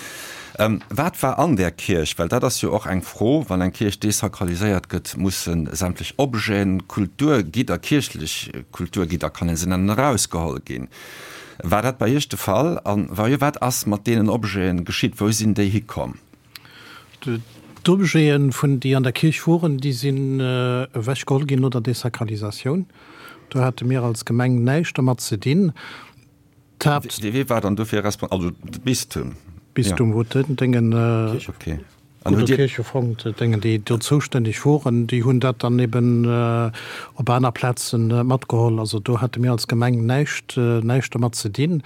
Wat war an där Kierch? Well dat ass jo och eng Fro, wann eng Kierch desakraliséiert gëtt, musse sämtlech Objeten, Kulturgidder, kierchlech Kulturgidder kann ee se nennen, erausgeholl ginn. War dat bei Iech de Fall? A wa jo, wat ass mat deenen Objeten geschitt? Wou sinn déi hikomm?
D'Objeten, vun déi an der Kierch woren, déi sinn ewechgeholl ginn no der Desakralisatioun. Do hate mir als Gemeng näischt dermat ze dinn.
D'Haapt. Wee war dann dofir respon-, also de Bistum?
Bistum huet den Déngen.
Okay.
An hutt Dir. Kierchefong, Déngen, déi do zoustänneg woren, déi hunn dat dann eben op aner Plaze matgeholl. Also do hate mir als Gemeng näischt, näischt dermat ze dinn.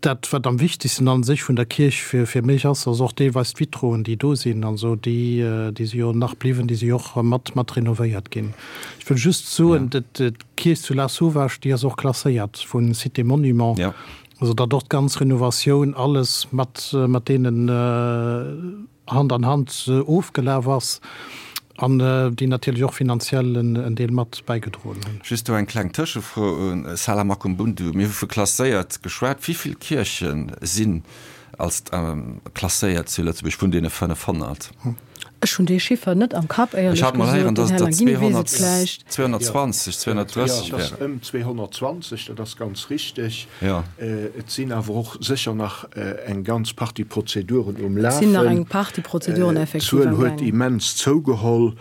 Dat, wat am wichtigsten a sech vun der Kierch fir, fir mech ass, ass och deelweis d'Vitroen, déi do sinn. Also déi, déi si jo nach bliwwen, déi si jo och mat, mat renovéiert ginn. Ech wëll just soen, d'Kierch zu Lasauvage, déi ass och klasséiert vu Cité Monument. Also datt och d'ganz Renovatioun, alles mat, mat deenen Hand an Hand ofgelaf ass an déi natierlech och finanziell en Deel mat bäigedroen hunn.
Just do eng kleng Tëschefro un Sala Makumbundu. Mir hu vu klasséiert geschwat. Wéi vill Kierche sinn als klasséiert zu Lëtzebuerg vun deene 500?
Ech hunn dee Chiffer net am Kapp, éierlech
Ech hat mol héieren, gesot. Den datt et Här der Langini weess et vläicht. 220, 230
Jo, et ass wären. ëm 220, dat ass ganz richteg.
Jo.
Et sinn awer och sécher nach eng ganz Partie Prozeduren um
Et sinn nach eng Partie Prozeduren effektiv
D'Zuel
am
huet Gaang. immens zougeholl,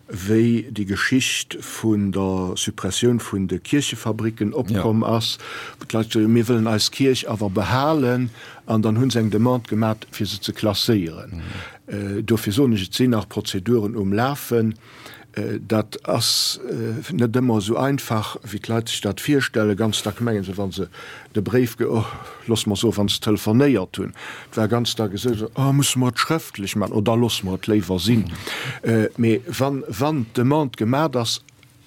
wéi déi Geschicht vun der Suppressioun vun de Kierchefabricken opkomm ass, wou d'Leit gesot hunn, mir wëllen eis Kierch awer behalen, an dann hu se eng Demande gemat, fir se ze klasséieren. Dofir soen ech, et sinn nach Prozeduren um Lafen. Dat ass net ëmmer esou einfach, wéi d'Leit sech dat virstellen. Ganz dack mengen se, wa se de Bréif, oh, loosse mer soen, wa se telefonéiert hunn, et war ganz dack esou, oh, musse mer et schrëftlech maachen, oh, da loosse mer et léiwer sinn. Mee wann, wann d'Demande gemat ass,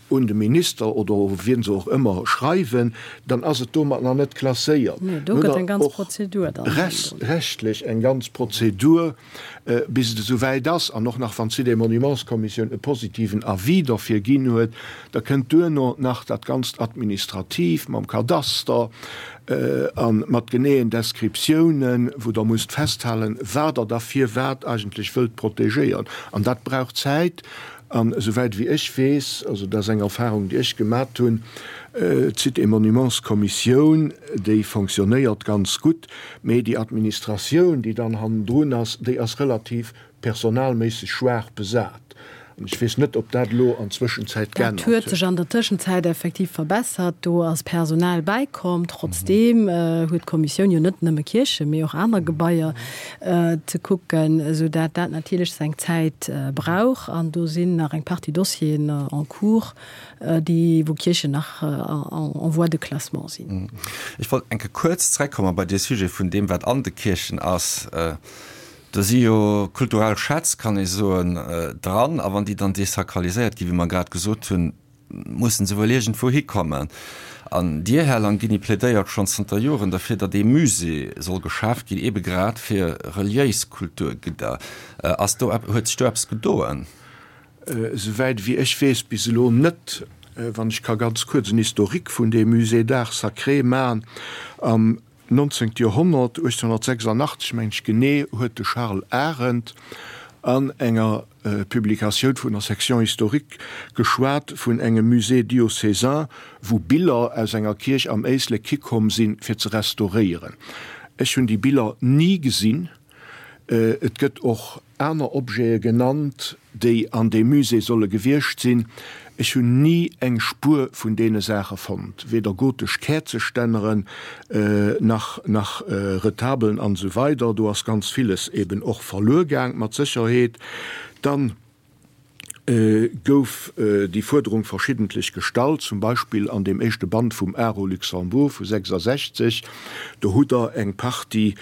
un de Minister oder u wien se och ëmmer schreiwen, dann ass et domat nach net klasséiert.
Nee, do gëtt eng ganz Prozedur dann
hannendrun. Rechtlech eng ganz Prozedur, bis et esou wäit ass. An och nach wann d'Sites et Monuments-Kommissioun e positiven Avis derfir ginn huet, da kënnt duerno nach dat ganzt Administratiivt mam Kadaster a mat geneeën Descriptiounen, wou Der musst festhalen, wat Der da firwat eigentlech wëllt protegéieren. An dat brauch Zäit. An esouwäit wéi ech weess, also dat ass eng Erfahrung, déi ech gemat hunn, d'Sites et Monuments Kommissioun, déi fonctionnéiert ganz gutt, mee déi Administratioun, déi dann hannendrun ass, déi ass relativ personalméisseg schwaach besat. An ech weess net, ob dat elo an Zwëschenzäit
Dat
geännert
huet
huet.
sech an der Tëschenzäit effektiv verbessert. Do ass Personal bäikomm. Trotzdeem huet d'Kommissioun jo net nëmme Kierchen, mee och aner Gebaier ze kucken, esou dat dat natierlech seng Zäit brauch. An do sinn nach eng Partie Dossieren en cours, déi, wou Kierchen nach en voie de classement sinn.
Ech wollt eng Kéier kuerz zreckkomme bei dee Sujet vun deem, wat an de Kierchen ass. Do si jo kulturell Schätz, kann ee soen, dran. A wann déi dann desakraliséiert ginn, wéi mer grad gesot hunn, mussen se wuel iergendwou hikommen. An Dir, Här Langini, plädéiert schonn zanter Joren derfir, datt ee Musée soll geschaaft ginn, eebe grad fir reliéis Kulturgidder. Ass do, huet sech do eppes gedoen?
Esouwäit ewéi ech weess, bis elo net. Wann ech ka ganz kuerz en Historique vun deem Musée d'art sacré maachen. Am 19. Joerhonnert, 1886 mengen ech genee, huet de Charles Arendt an enger Publikatioun vun der Section historique geschwat vun engem Musée diocésain, wou Biller aus enger Kierch am Éislek hikomm sinn, fir ze restauréieren. Ech hunn déi Biller ni gesinn. Et gëtt och aner Objete genannt, déi an deem Musée solle gewiescht sinn. Ech hunn ni eng Spuer vun deene Saache fonnt, weder gotesch Käerzestänneren, nach nach Retabelen an esou weider. Do ass ganz villes eben och verluer gaang, mat Sécherheet. Dann gouf déi Fuerderung verschiddentlech gestallt, zum Beispill an deem éischte Band vum Art au Luxembourg vu 66. Do hutt Der eng Partie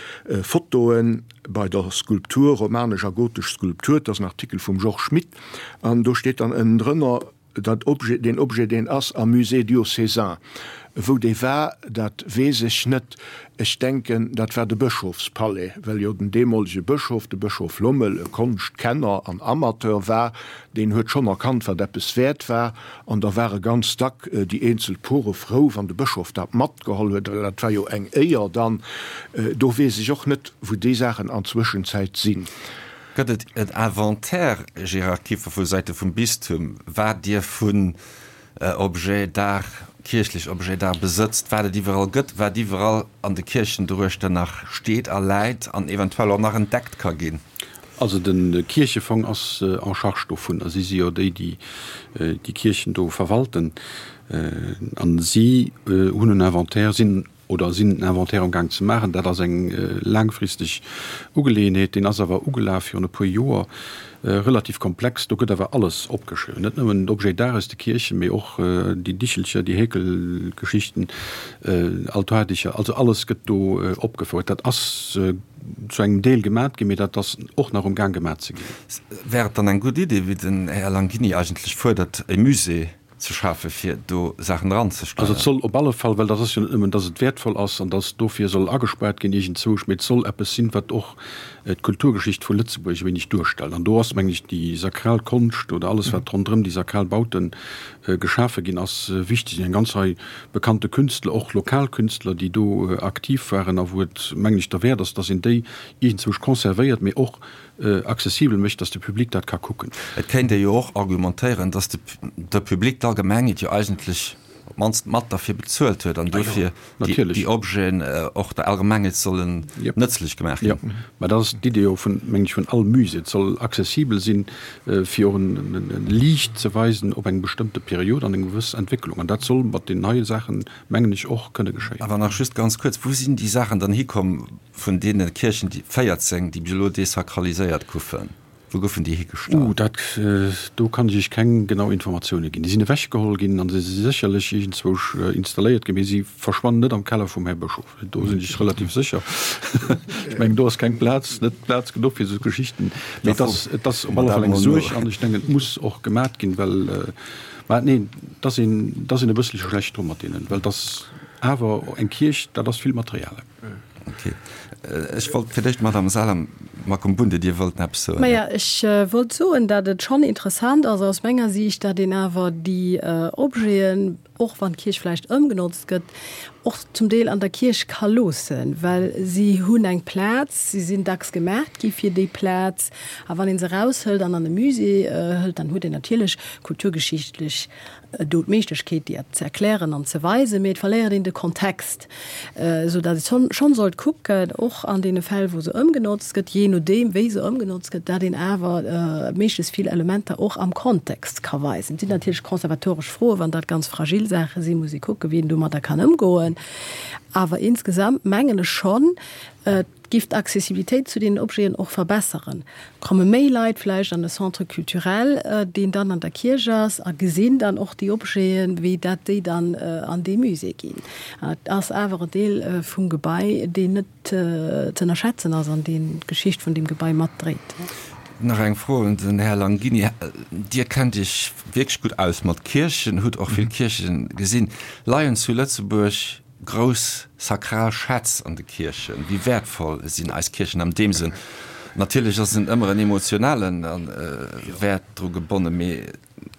Fotoen bei der Skulptur, romanesch a gotesch Skulptur, dat ass en Artikel vum Georges Schmitt, an do steet dann ënnendrënner, Dat Objet, deen Objet, deen ass am Musée diocésain. Wou dee war, dat weess ech net. Ech denken, dat war de Bëschofspalais, well jo den deemolege Bëschof, de Bëschof Lommel, e Konschtkenner an Amateur war. Deen huet schonn erkannt, wat eppes wäert war. An da ware ganz dack déi eenzel Pore frou, wann de Bëschof dat matgeholl huet, well dat war jo eng Éier dann. Do weess ech och net, wou déi Saachen an Zwëschenzäit sinn.
Gëtt et en Inventaire, Gérard Kieffer, vu Säite vum Bistum, wat Dir vun Objets d'art, kierchlech Objets d'art besëtzt, wat et iwwerall gëtt, wat iwwerall an de Kierchen doruechter nach steet a läit an eventuell och nach entdeckt ka ginn?
Also de Kierchefong ass en charge dovun a si si jo déi, déi déi Kierchen do verwalten. A si hunn en Inventaire, sinn oder sinn en Inventaire am Gaang ze maachen. Dat ass eng laangfristeg Ugeleeënheet. Deen ass awer ugelaf virun e puer Joer, relativ komplex. Do gëtt awer alles opgeschriwwen, net nëmmen d'Objets d'art aus de Kierchen, mee och déi Dichelcher, déi Häkelgeschichten, Altardicher, also alles gëtt do opgefouert. Dat ass zu engem Deel gemat ginn, mee dat ass och nach um Gaang gemat ze ginn.
Wär et dann eng gutt Idee, wéi den Här Langini eigentlech fuerdert, e Musée ze schafe fir do Saachen eranzestellen.
Also et soll op alle Fall, well dat ass jo net nëmmen, dass et wäertvoll ass an dass dofir soll agespaart ginn iergendzwousch, mee et soll eppes sinn, wat och d'Kulturgeschicht vu Lëtzebuerg e wéineg duerstellt. An do ass, mengen ech, déi sakral Konscht oder alles, wat ronderëm déi sakral Baute geschafe ginn ass, wichteg. Eng ganz Rei bekannte Künstler, och lokal Künstler, déi do aktiv waren a wou et, mengen ech, derwäert ass, dass een déi iergendzwousch conservéiert, mee och accessibel mécht, dass de Public dat ka kucken.
Et kéint ee jo och argumentéieren, dass de Public, d'Allgemengheet jo eigentlech op d'mannst mat derfir bezuelt huet an dofir déi Objeten och der Allgemengheet sollen nëtzlech gemaach
ginn. Jo, mä dat ass d'Idee jo vun, mengen ech, vun all Musée. Et soll accessibel sinn, fir och e Liicht ze weisen op eng bestëmmte Period an eng gewëss Entwécklung. An dat soll mat den neie Saachen, mengen ech, och kënne geschéien.
Awer nach just ganz kuerz, Wou sinn déi Saachen dann hikomm, Vun deene Kierchen, déi 14, déi bis elo desakraliséiert goufen, wou goufen déi higestallt?
Uh, dat, do kann ech Iech keng genau Informatioune ginn. Déi sinn ewechgeholl ginn a se si sécherlech iergendzwousch installéiert ginn, mee si verschwannen net am Keller vum Här Bëschof. Do sinn ech relativ sécher. Ech mengen, do ass keng Plaz, net Plaz genuch fir esou Geschichten. Mee et ass, et ass op alle Fall eng Suerg an ech denken, et muss och gemat ginn, well, mä neen, et ass een, et ass een e bësselche schlecht dru mat deenen, well et ass awer eng Kierch, dat ass vill Material.
Ok. Ech wollt fir d'éischt d'Madame Salem Makumbunde, Dir wollt eppes soen.
Maja, ech wollt soen, datt et schonn interessant ass aus menger Siicht, datt een awer déi Objeten. och wann d'Kierch vläicht ëmgenotzt gëtt, och zum Deel an der Kierch ka loossen, well si hunn eng Plaz, si sinn dacks gemaacht gi fir déi Plaz. A wann ee se eraushëlt an an e Musée hëlt, dann huet een natierlech kulturgeschichtlech do d'Méiglechkeet, déi ze erklären an ze weisen, mee et verléiert een de Kontext, esou datt ee schonn sollt kucken, och an deene Fäll, wou se ëmgenotzt gëtt, jee nodeem wéi se ëmgenotzt gëtt, datt een awer méiglechst vill Elementer och am Kontext ka weisen. Et sinn natierlech konservatoresch Froen, wann dat ganz fragil Saache sinn, muss ee kucken, wéi een domadder kann ëmgoen. Awer insgesamt mengen ech schonn, et giff d'Accessibilitéit zu deenen Objeten och verbesseren. Komme méi Leit vläicht an e Centre culturel, deen dann an der Kierch ass, a gesinn dann och déi Objeten, wéi dat déi dann an dee Musée ginn. Et ass awer e Deel vum Gebai, deen net ze ënnerschätzen ass an deen d'Geschicht vun deem Gebai matdréit.
Nach eng Fro un den Här Langini. Dir kennt Iech wierklech gutt aus mat Kierchen, hutt och vill Kierchen gesinn. Leien zu Lëtzebuerg grouss sakral Schätz an de Kierchen? Wéi wäertvoll sinn eis Kierchen am deem Sënn? Natierlech ass en ëmmer en emotionalen Wäert dru gebonnen, mee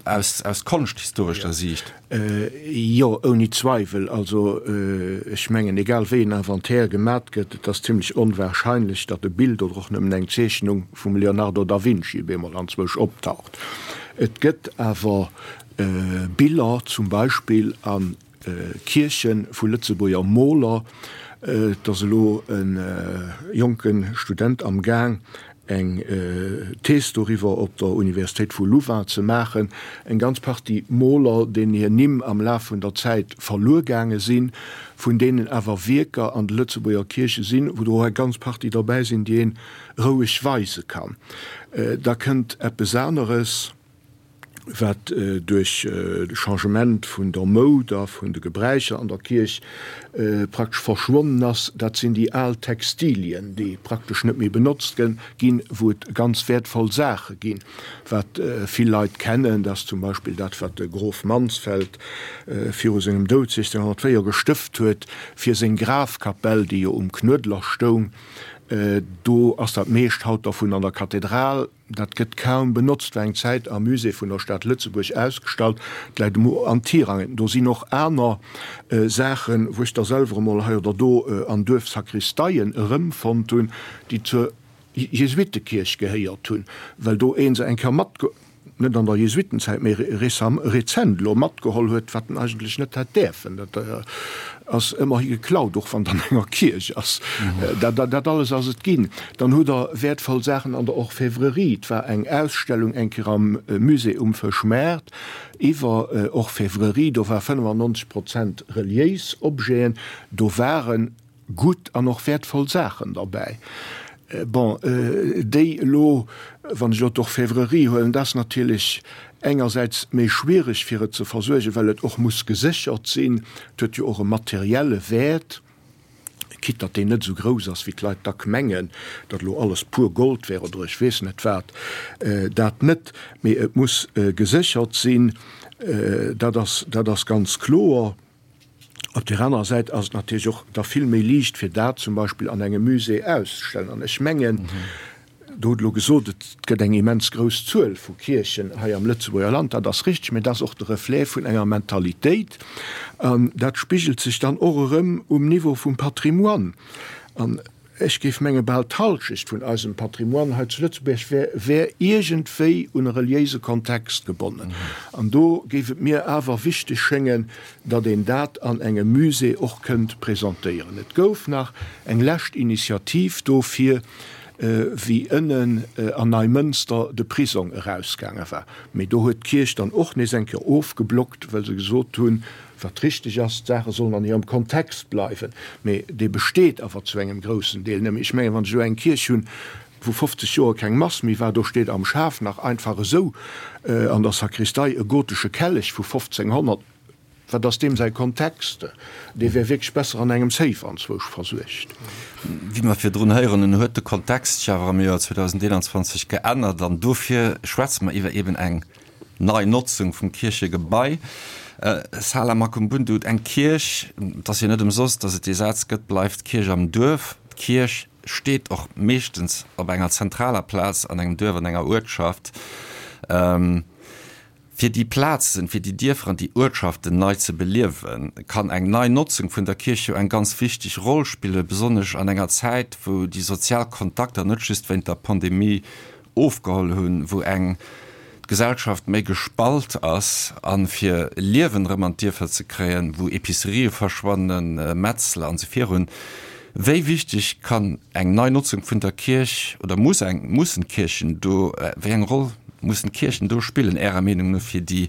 aus aus konschthistorescher Siicht.
Jo, ouni Zweiwel. Also ech mengen, egal wéi en Inventaire gemat gëtt, et ass zimlech onwahrscheinlech, datt e Bild oder och nëmmen eng Zeechnung vum Leonardo da Vinci op eemol anzwousch optaucht. Et gëtt awer Biller zum Beispill a Kierche vu Lëtzebuerger Moler. Et ass elo e jonke Student am Gaang, eng Thees doriwwer op der Universitéit vu Louvain ze maachen. Eng ganz Partie Moler, deenen hir Nimm am Laf vun der Zäit verluer gaange sinn, vun deenen awer Wierker an de Lëtzebuerger Kierche sinn, wou der och eng ganz Partie derbäi sinn, déi een roueg weise kann. Da kënnt eppes aneres. wat duerch de Changement vun der Moud a vun de Gebräicher an der Kierch praktesch verschwonnen ass, dat sinn déi al Textilien, déi praktesch net méi benotzt ginn, wou et ganz wäertvoll Saache ginn. Wat vill Leit kennen, dat ass zum Beispill dat, wat de Grof Mansfeld viru sengem Doud 1604 gestëft huet fir seng Grafkapell, déi jo um Knuedler stoung. Do ass dat meescht haut dervun an der Kathedral. Dat gëtt kaum benotzt, war eng Zäit am Musée vun der Stad Lëtzebuerg ausgestallt, et läit emo an Tirangen. Do sinn och aner Saachen, wou ech der selwer emol hei oder do an Duerfsakristeien erëmfonnt hunn, déi zur Jesuittekierch gehéiert hunn, well do ee se eng Kéier matge. Net an der Jesuitenzäit, mee rezent elo matgeholl huet, wat en eigentlech net hätt däerfen. Dat ass ëmmerhi geklaut, och wann et an enger Kierch ass. Dat alles ass et ginn. Dann hutt Der wäertvoll Saachen an der Orfèvrerie. Et war eng Ausstellung eng Kéier am Musée um Fëschmaart iwwer Orfèvrerie. Do war 95 Prozent reliéis Objeten. Do waren gutt an och wäertvoll Saachen derbäi. Bon, déi elo, wann ech elo d'Orfèvrerie huelen, dat ass natierlech engersäits méi schwierig fir et ze versuergen, well et och muss geséchert sinn. Et huet jo och e materielle Wäert, quitte datt deen net esou grouss ass, wéi d'Leit dack mengen, datt elo alles pur Gold wär oder ech weess net wat. Dat net, mee et muss geséchert sinn, dat ass, dat ass ganz kloer. Op där anerer Säit ass et natierlech och da vill méi liicht, fir dat zum Beispill an engem Musée auszestellen. An ech mengen, Der hutt elo gesot, et gëtt eng immens grouss Zuel vu Kierchen hei am Lëtzebuerger Land. Dat ass richteg, mä dat ass och de Reflet vun enger Mentalitéit. An dat spigelt sech dann och erëm um Niveau vum Patrimoine. An Ech géif menge bal d'Halschecht vun eisem Patrimoine hei zu Lëtzebuerg wär wär iergendwéi un e reliéise Kontext gebonnen. An do géif et mir awer wichteg schéngen, datt een dat an engem Musée och kënnt presentéieren. Et gouf nach eng lescht Initiativ dofir, wéi ënnen an Neimënster de Prisong erausgaange war. Mee do huet d'Kierch dann och nees eng Kéier ofgeblockt, well se gesot hunn, Wat richteg ass, d'Saache sollen an hirem Kontext bleiwen, mee dee besteet awer zu engem groussen Deel net méi. Ech mengen, wann ech elo eng Kierch hunn, wou 50 Joer keng Mass méi war, do steet am Schaf nach einfach esou an der Sakristei e gotesche Kellech vu 1500, wat ass deem säi Kontext? Dee wär wierklech besser an engem Safe anzwousch versuergt.
Wéi mer virdrun héieren hunn, huet de Kontext sech awer am Joer 2021 geännert an dofir schwätze mer iwwer eben eng Nei Notzung vum Kierchegebai. Sala Makumbundu, Eng Kierch, et ass jo net ëmsoss, datt et dee Saz gëtt, bleift d'Kierch am Duerf. D'Kierch steet och meeschtens op enger zentraler Plaz an engem Duerf, an enger Uertschaft. Fir déi Plazen, fir déi Dierfer an déi Uertschaften nei ze beliewen, kann eng nei Notzung vun der Kierch jo eng ganz wichteg Roll spillen, besonnesch an enger Zäit, wou déi sozial Kontakter net just wéint der Pandemie ofgeholl hunn, wou eng d'Gesellschaft méi gespalt ass, a fir Liewen erëm an d'Dierfer ze kréien, wou Epicerië verschwannen, Metzler an esou virun. Wéi wichteg kann eng nei Notzung vun der Kierch oder muss eng, mussen d'Kierchen do, wéi eng Roll mussen d'Kierchen do spillen, Ärer Meenung no, fir déi,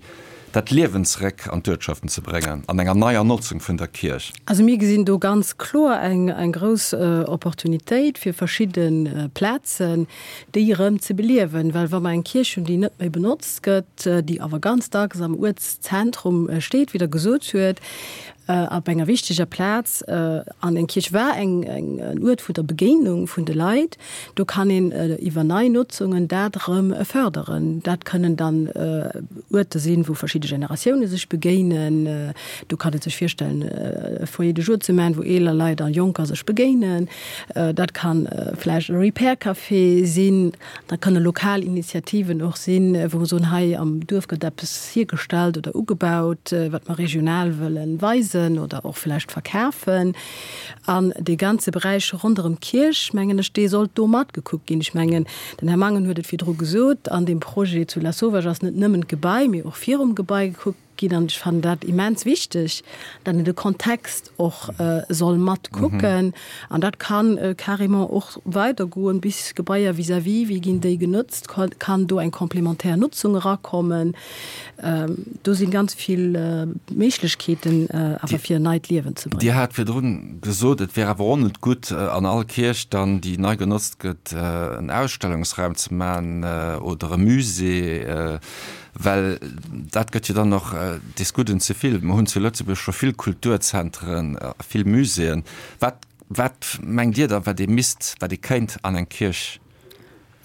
dat Liewen zeréck an d'Uertschaften ze bréngen an enger neier Notzung vun der Kierch?
Also mir gesinn do ganz kloer eng, eng grouss Opportunitéit fir verschidde Plazen, déi erëm ze beliewen. Well wa mer eng Kierch hunn, déi net méi benotzt gëtt, déi awer ganz dacks am Uertszentrum steet, wéi Der gesot huet, Op enger wichteger Plaz an eng Kierch war eng en Uert vun der Begéinung vun de Leit. Do kann een iwwer nei Notzungen dat erëm fërderen. Dat kënnen dann Uerter sinn, wou verschidde Generatioune sech begéinen. Do kann ee sech virstellen, e Foyer de jour ze maachen, wou eeler Leit a Jonker sech begéinen. Dat kann vläicht e Repair Café sinn. Dat kënne lokal Initiativen och sinn, wou mer soen, hei am Duerf gëtt eppes hiergestallt oder ugebaut, wat mer regional wëlle weisen oder och vläicht verkafen. An dee ganze Beräich ronderëm d'Kierch, mengen ech, dee sollt do matgekuckt ginn. Ech mengen, den Här Mangen huet et virdru gesot, an deem Projet zu Lasauvage ass net nëmmen d'Gebai, mee och virum Gebai gekuckt ginn. An ech fannen dat immens wichteg, datt een de Kontext och soll mat kucken. An dat kann carrément och weidergoen bis Gebaier vis-à-vis, wéi ginn déi genotzt, kann do eng complémentaire Nutzung erakommen. Do si ganz vill Méiglechkeeten awer fir en neit Liewen ze bréngen.
Dir hat virdrun gesot, et wär awer och net gutt, an all Kierch dann, déi nei genotzt gëtt, en Ausstellungsraum ze maachen oder e Musée. Well dat gëtt jo dann och des Gudden ze vill. Mer hunn zu Lëtzebuerg scho vill Kulturzentren a vill Muséeën. Wat, wat mengt Dir da, wat ee misst, wat ee kéint an eng Kierch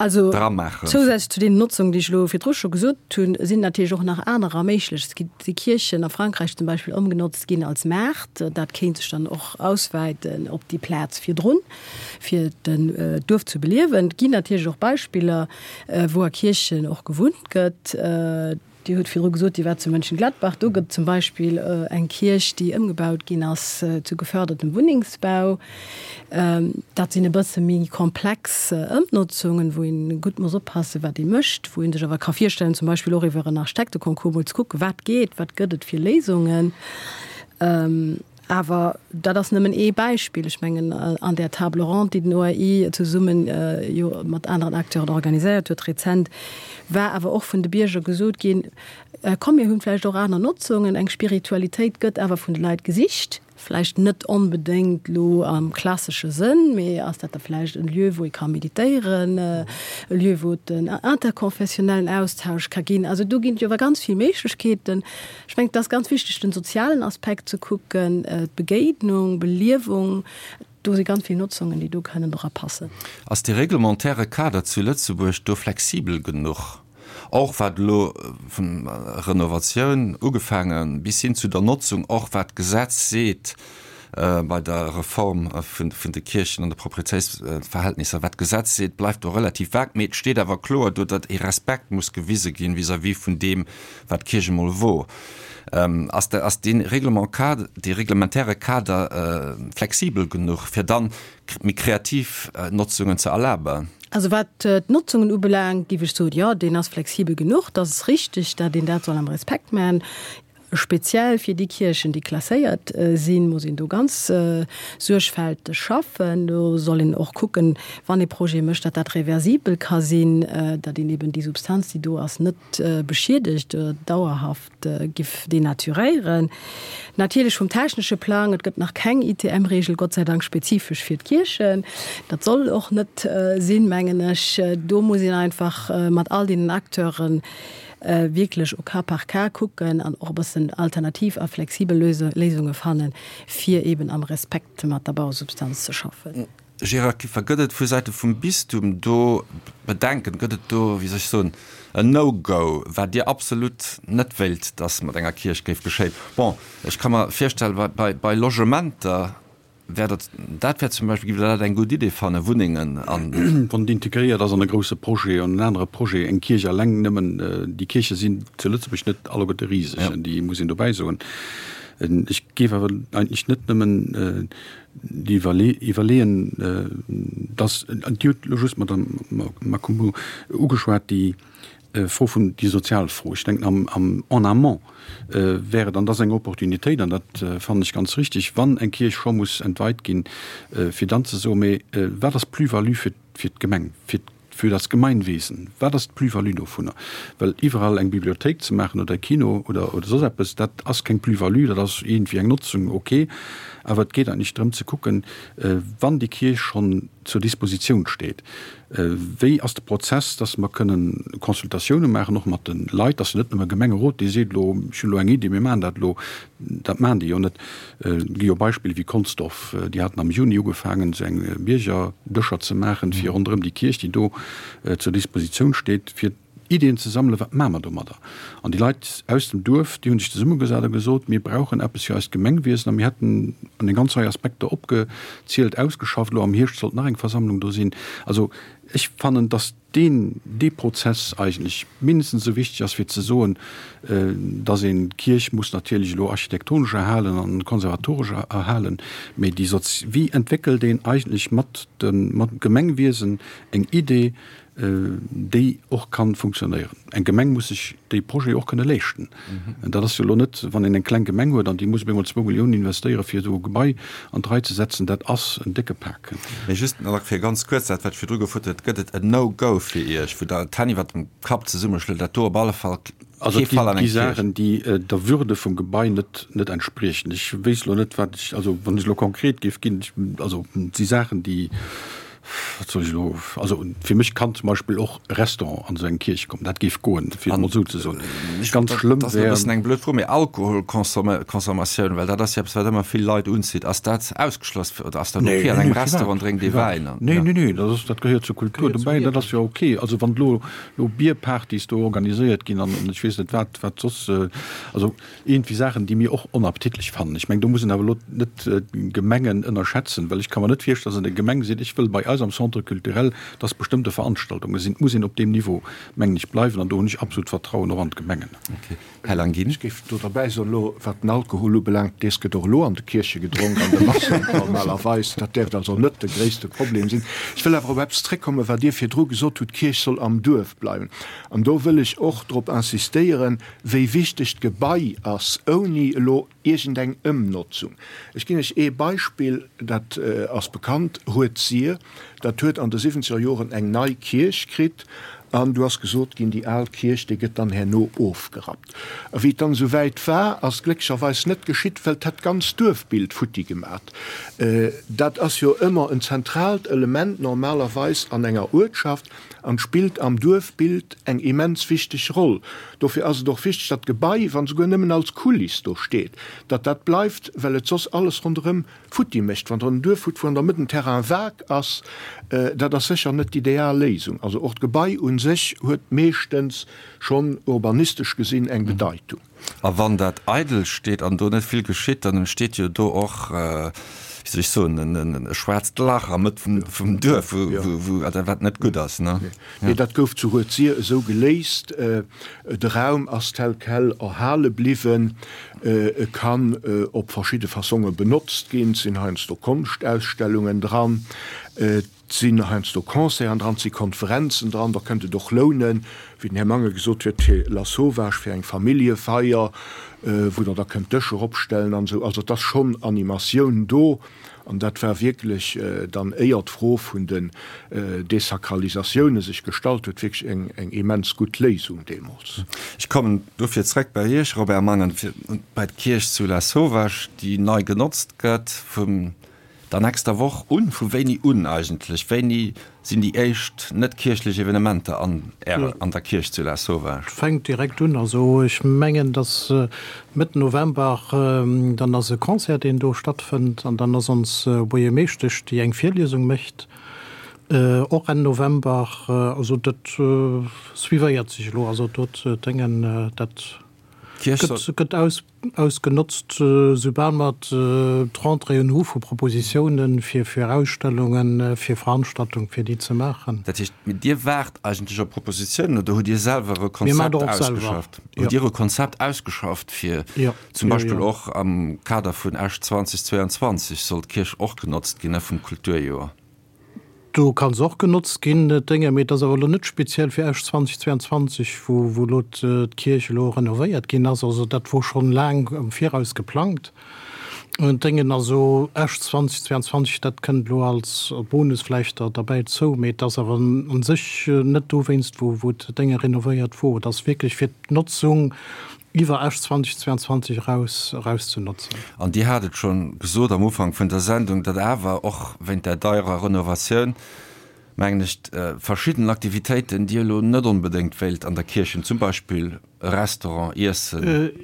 dramaachen?
Also zousätzlech zu deenen Notzungen, déi ech elo virdru scho gesot hunn, sinn natierlech och nach anerer méiglech. Et gi Kierchen a Frankräich zum Beispill ëmgenotzt ginn als Maart. Dat kéint sech dann och auswäiten op déi Plaz virdrun, fir den Duerf ze beliewen. Et ginn natierlech och Beispiller, wou a Kierchen och gewunnt gëtt. Dir hutt virdru gesot, Dir waart zu Mönchengladbach. Do gëtt zum Beispill eng Kierch, déi ëmgebaut ginn ass zu gefördertem Wunnengsbau. Dat sinn e bësse méi komplex Ëmnotzungen, wou ee gutt muss oppassen, wat ee mécht, wou ee sech awer ka virstellen, zum Beispill och iwwer en Architekteconcours mol ze kucken, wat geet, wat gëtt et fir Léisungen. Awer dat ass nëmmen ee Beispill. Ech mengen, an där Table ronde, déi den OAI zesumme jo mat aneren Acteuren organiséiert huet rezent, war awer och vun de Bierger gesot ginn, Komm, mir hunn vläicht och aner Notzungen, eng Spiritualitéit gëtt awer vun de Leit gesicht, vläicht net onbedéngt elo am klassesche Sënn, mee ass dat da vläicht en Lieu, wou ee ka meditéieren, e Lieu, wou et en interkonfessionellen Austausch ka ginn. Also do ginn et jo awer ganz vill Méiglechkeeten. Ech mengen, et ass ganz wichteg, den sozialen Aspekt ze kucken, d'Begéinung, Beliewung. Do si ganz vill Notzungen, déi do kënnen dra passen.
Ass dee reglementaire Kader zu Lëtzebuerg do flexibel genuch, och wat elo vun Renovatioun ugefaange bis hin zu der Notzung, och wat d'Gesetz seet bei der Reform vun de Kierchen an de Proprietéitsverhältnisser, wat d'Gesetz seet, bleift do relativ vag, mee et steet awer kloer do, datt ee Respekt muss gewise ginn vis-à-vis vun deem, wat d'Kierch emol wor. Ass de, ass dee Règlement cadre, dee reglementaire Kader flexibel genuch, fir dann méi kreativ Notzungen ze erlaben?
Also wat d'Notzungen ubelaangt, géif ech soen, jo, deen ass flexibel genuch. Dat ass richtig, dat een dat soll am Respekt maachen. Speziell fir déi Kierchen, déi klasséiert sinn, muss een do ganz suergfälteg schaffen. Do soll een och kucken, wann ee Projet mécht, datt dat reversibel ka sinn, datt een eben déi Substanz, déi do ass, net beschiedegt oder dauerhaft giff denaturéieren. Natierlech vum technesche Plang, et gëtt nach keng ITM-Regel, Gott sei Dank, spezifesch fir d'Kierchen. Dat soll och net sinn, mengen ech. Do muss een einfach mat all deenen Acteuren wierklech au cas par cas kucken an och e bëssen alternativ a flexibel Léisunge fannen, fir eben am Respekt mat der Bausubstanz ze schaffen.
Gérard Kieffer, Gëtt et vu Säite vum Bistum do Bedenken, gëtt et do, wéi soll ech soen, en No-Go, wat Dir absolut net wéilt, datt mat enger Kierch géif geschéien? Bon, ech ka mer virstellen, bei, bei Logementer. Wär dat, dat wär zum Beispill, giff Der dat eng gutt Idee fannen, Wunnengen an.
Wann et integréiert ass an e grousse Projet, an en anere Projet, eng Kierch alleng nëmmen, déi Kierche sinn zu Lëtzebuerg net alleguerte riseg, déi muss een dobäi soen. Ech géif awer eigentlech net nëmmen déi Iwwerleeën, dass, Dir hutt elo just, Madame Makoumbou, ugeschwat, déi Fro vun, déi sozial Fro. Ech denken am, am en amont wär et, an dat ass eng Opportunitéit, an dat fannen ech ganz richtig, wann eng Kierch scho muss entweit ginn, fir dann ze soen, Mee wat ass d'Plus-value fir, fir d'Gemeng, fir, für das Gemeinwesen? Wat ass d'Plus-value dovunner? Well iwwerall eng Bibliothéik ze maachen oder e Kino oder, oder soss eppes, dat ass keng Plus-value, dat ass iergendwéi eng Notzung, okay. Awer et geet eigentlech drëm ze kucken, wann déi Kierch schonn zur Dispositioun steet, Wéi ass de Prozess, dass mer kënnen Consultatioune maachen, och mat de Leit, dass net nëmme Gemengerot, dee seet elo, ech hunn elo eng Iddi, mir maachen dat elo. Dat maachen déi jo net. Et gi jo Beispiller wéi Consdorf, déi haten am Juni ugefaangen, esou eng Biergerdëscher ze maachen, fir ronderëm déi Kierch, déi do zur Dispositioun steet, fir Iddien ze sammelen, wat maache mer domadder? An déi Leit aus dem Duerf, déi hu sech zesummegesat a gesot, mir brauchen eppes fir eist Gemengwiesen a mir hätten an eng ganz Rei Aspekter opgezielt, ausgeschafft. Elo am Hierscht sollt nach eng Versammlung do sinn. Also ech fannen, datt deen, dee Prozess eigentlech mindestens esou wichteg ass, fir ze soen, datt een d'Kierch muss natierlech elo architektonesch erhalen an konservatoresch erhalen, mee déi sozi-, wéi entwéckelt een eigentlech mat dem, mat dem Gemengwiesen eng Idee, déi och kann funktionéieren. Eng Gemeng muss sech déi Projete och kënne leeschten. Dat ass jo elo net, wann een eng kleng Gemeng huet an déi muss op eemol zwou Milliounen investéiere fir esou e Gebai an d'Rei ze setzen, dat ass en décke Pak.
Mee just nach fir ganz kuerz dat, wat ech virdru gefrot hunn, Gëtt et en No-Go fir Iech, wou Der d'Hänn iwwert dem Kapp zesummeschloet, dat do op alle Fall
Also et gi Saachen, déi der Würde vum Gebai net net entspriechen. Ech wéisst elo net, wat ech, also wann ech elo konkret géif ginn, also et si Saachen, déi, wat soll ech elo, also fir mech kann zum Beispill och e Restaurant an esou eng Kierch kommen, dat géif goen, fir et emol esou ze soen.
Ganz schlëmm wär. Dat ass e bëssen eng blöd Fro, mee Alkoholconsommatioun, well dat ass jo eppes, wat ëmmer vill Leit unzitt, ass dat ausgeschloss oder ass dat ok an engem Restaurant drénkt ee Wäin
an? Nee, nee, nee, dat ass, dat gehéiert zur Kultur dobäi, dat ass jo ok. Also wann elo lo Bierpartys do organiséiert ginn an ech weess net wat, wat soss, also iergendwéi Saachen, déi mir och onappetitlech fannen. Ech mengen, do muss een awer elo net d'Gemengen ënnerschätzen, well ech ka mer net virstellen, dass eng Gemeng seet, ech wëll bei eis am Centre culturel, dass bestëmmte Veranstaltunge sinn. Et muss een op deem Niveau, mengen ech, bleiwen an do hunn ech absolut Vertrauen och an d'Gemengen.
Här Languin. Ech géif do derbäi soen, elo wat den Alkohol ubelaangt, dees gëtt och elo an de Kierche gedronk, an de Massen normalerweis. Dat däerft also net de gréisste Problem sinn. Ech wëll awer op eppes zréckkommen, wat Dir virdru gesot hutt, d'Kierch soll am Duerf bleiwen. An do wëll ech och drop insistéieren, wéi wichteg d'Gebai ass, ouni elo iergendeng Ëmnotzung. Ech ginn Iech ee Beispill, dat ass bekannt, Rued-Sir, dat huet an de siwwenzeger Joren eng nei Kierch kritt an du ass gesot ginn, déi al Kierch, déi gëtt dann herno ofgerappt. A wéi et dann esou wäit war, ass et glécklecherweis net geschitt, well et hätt d'ganz Duerfbild futti gemat. Dat ass jo ëmmer en zentraalt Element normalerweis an enger Uertschaft an spillt am Duerfbild eng immens wichteg Roll. Dofir ass et och wichteg, datt d'Gebai, wann souguer nëmmen als Kuliss do steet, datt dat bleift, well et soss alles ronderëm futti mécht. Wann Der en Duerf hutt, wou an der Mëtt en Terrain vague ass, dat ass sécher net d'ideal Léisung. Also och d'Gebai u sech huet meeschtens schonn urbanistesch gesinn eng Bedeitung.
A wann dat eidel steet an do net vill geschitt, dann entsteet jo do och, wéi soll ech soen, e schwaarzt Lach am Mëtt vum Duerf, wou, wat net gutt ass, ne?
Nee, dat gouf zu Rued-Sir esou geléist. De Raum ass tel quel erhale bliwwen. E kann op verschidde Fassonge benotzt ginn. Et sinn heiansdo Konschtausstellungen dran. Et sinn heiansdo Concerten dran, et si Konferenzen dran. Da kënnt et och lounen, wéi den Här Mangen gesot huet, fir Lasauvage, fir eng Familljefeier, wou Der da kënnt Dëscher opstellen an esou. Also et ass schonn Animatioun do. An dat war wierklech dann, éier d'Fro vun den Desakralisatioune sech gestallt huet, wierklech eng immens gutt Léisung deemools.
Ech kommen dofir zrëck bei Iech, Robert Mangen, fir bei d'Kierch zu Lasauvage, déi nei genotzt gëtt vum Der nächster Woch un? Vu wéini un eigentlech? Wéini sinn déi éischt net kierchlech Evenementer an Ärer, an der Kierch zu Lasauvage?
Fänkt direkt un. Also ech mengen, dass Mëtt November, dann ass e Concert, deen do stattfënnt an dann ass ons Buergermeeschtesch, déi eng Virliesung mécht, och Enn November. Also dat suivéiert sech elo. Also do d'Déngen, dat.
D'Kierch soll.
Gëtt ausgenotzt, soubal mer d'Rentréeën hu vu Propositiounen fir Ausstellungen, fir Veranstaltungen, fir déi ze maachen.
Dat heescht, mee Dir waart eigentlech op Propositiounen oder hutt Dir selwer e Konzept ausgeschafft? Hutt Dir e Konzept ausgeschafft fir zum Beispill och am Kader vun Esch 2022 soll d'Kierch och genotzt ginn, ne, vum Kulturjoer?
Do ka se och genotzt ginn, d'Dénge, mee et ass awer elo net speziell fir Esch 2022, wou wou elo d'Kierch elo renovéiert ginn ass. Also dat wor schonn laang am Viraus geplangt. D'Déngen, also Esch 2022, dat kënnt elo als Bonus vläicht der derbäi zou, mee et ass awer u sech net dowéinst, wou wou d'Dénge renovéiert wor. Et ass wierklech fir d'Notzung iwwer Esch 2022 eraus eraus ze notzen.
An Dir hat et scho gesot am Ufank vun der Sendung, datt awer och wéint där deierer Renovatioun, mengen ech, verschidden Aktivitéiten Dir elo net onbedéngt wéilt an der Kierch hunn, zum Beispill e Restaurant, Iessen,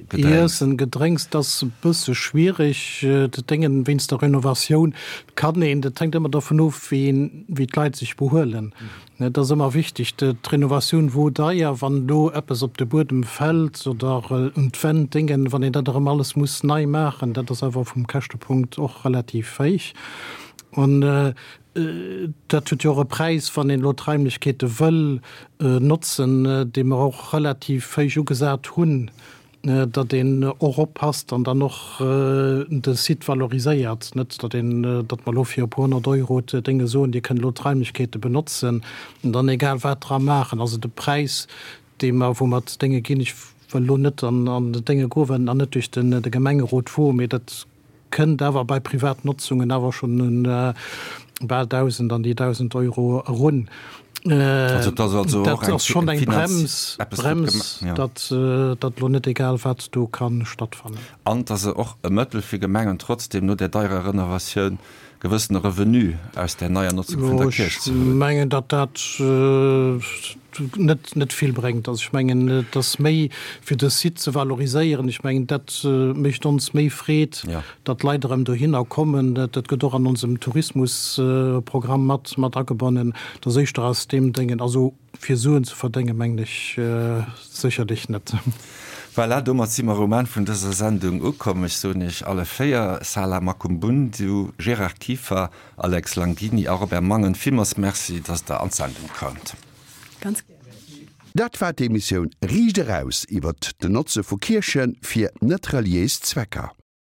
Gedrénks. Iessen, Gedrénks, dat ass e bësse schwierig. Dat Déngen, wéinst der Renovatioun kann een, dat hänkt ëmmer dovun of, wéi een, wéi d'Leit sech behuelen. Et ass ëmmer wichteg, d'Renovatioun wor deier, wann elo eppes op de Buedem fält oder un d'Wänn, Déngen, wann een dat erëm alles muss nei maachen, dat ass awer vum Käschtepunkt och relativ héich. An dat huet jo och e Präis, wann een elo d'Raimlechkeete wëll notzen, déi mer och relativ héich ugesat hunn. datt een och oppasst an dann och de Site valoriséiert, net datt een, datt mer elo fir e puer 100 Euro d'Dénge soen, Dir kënnt elo d'Raimlechkeete benotzen an dann egal wat dra maachen. Also de Präis, dee mer, wou mer d'Dénge ginn, ech wëll elo net an d'Dénge goen, well en nach net duerch de Gemengerot wor, mee dat Kënnt awer bei Privatnotzungen awer schonn un bal 1.000, an déi 1.000 Euro erun.
Also dat ass also
och eng schonn eng Brems, Brems, datt datt elo net egal wat do ka stattfannen.
An et ass och e Mëttel fir Gemengen trotzdem no där deierer Renovatioun gewëssene Revenu aus där neier Notzung vun der Kierch ze
huelen. Ech mengen, datt dat net net vill bréngt. Also ech mengen, et ass méi fir de Site ze valoriséieren. Ech mengen, dat mécht ons méi Freed, datt d'Leit erëm dohinner kommen. Dat gëtt och an onsem Tourismusprogramm mat mat agebonnen. Et ass éischter aus deem Déngen. Also fir Suen ze verdéngen, mengen ech sécherlech net.
Voilà, domat si mer um Enn vun dëser Sendung ukomm. Ech soen Iech alle 4, Sala Makumbundu, Gérard Kieffer, Alex Langini a Robert Mangen, villmools Merci, datt Der an d'Sendung koumt.
Ganz gär.
Dat war d'Emissioun Riicht Eraus iwwert den Notze vu Kierche fir net reliéis Zwecker.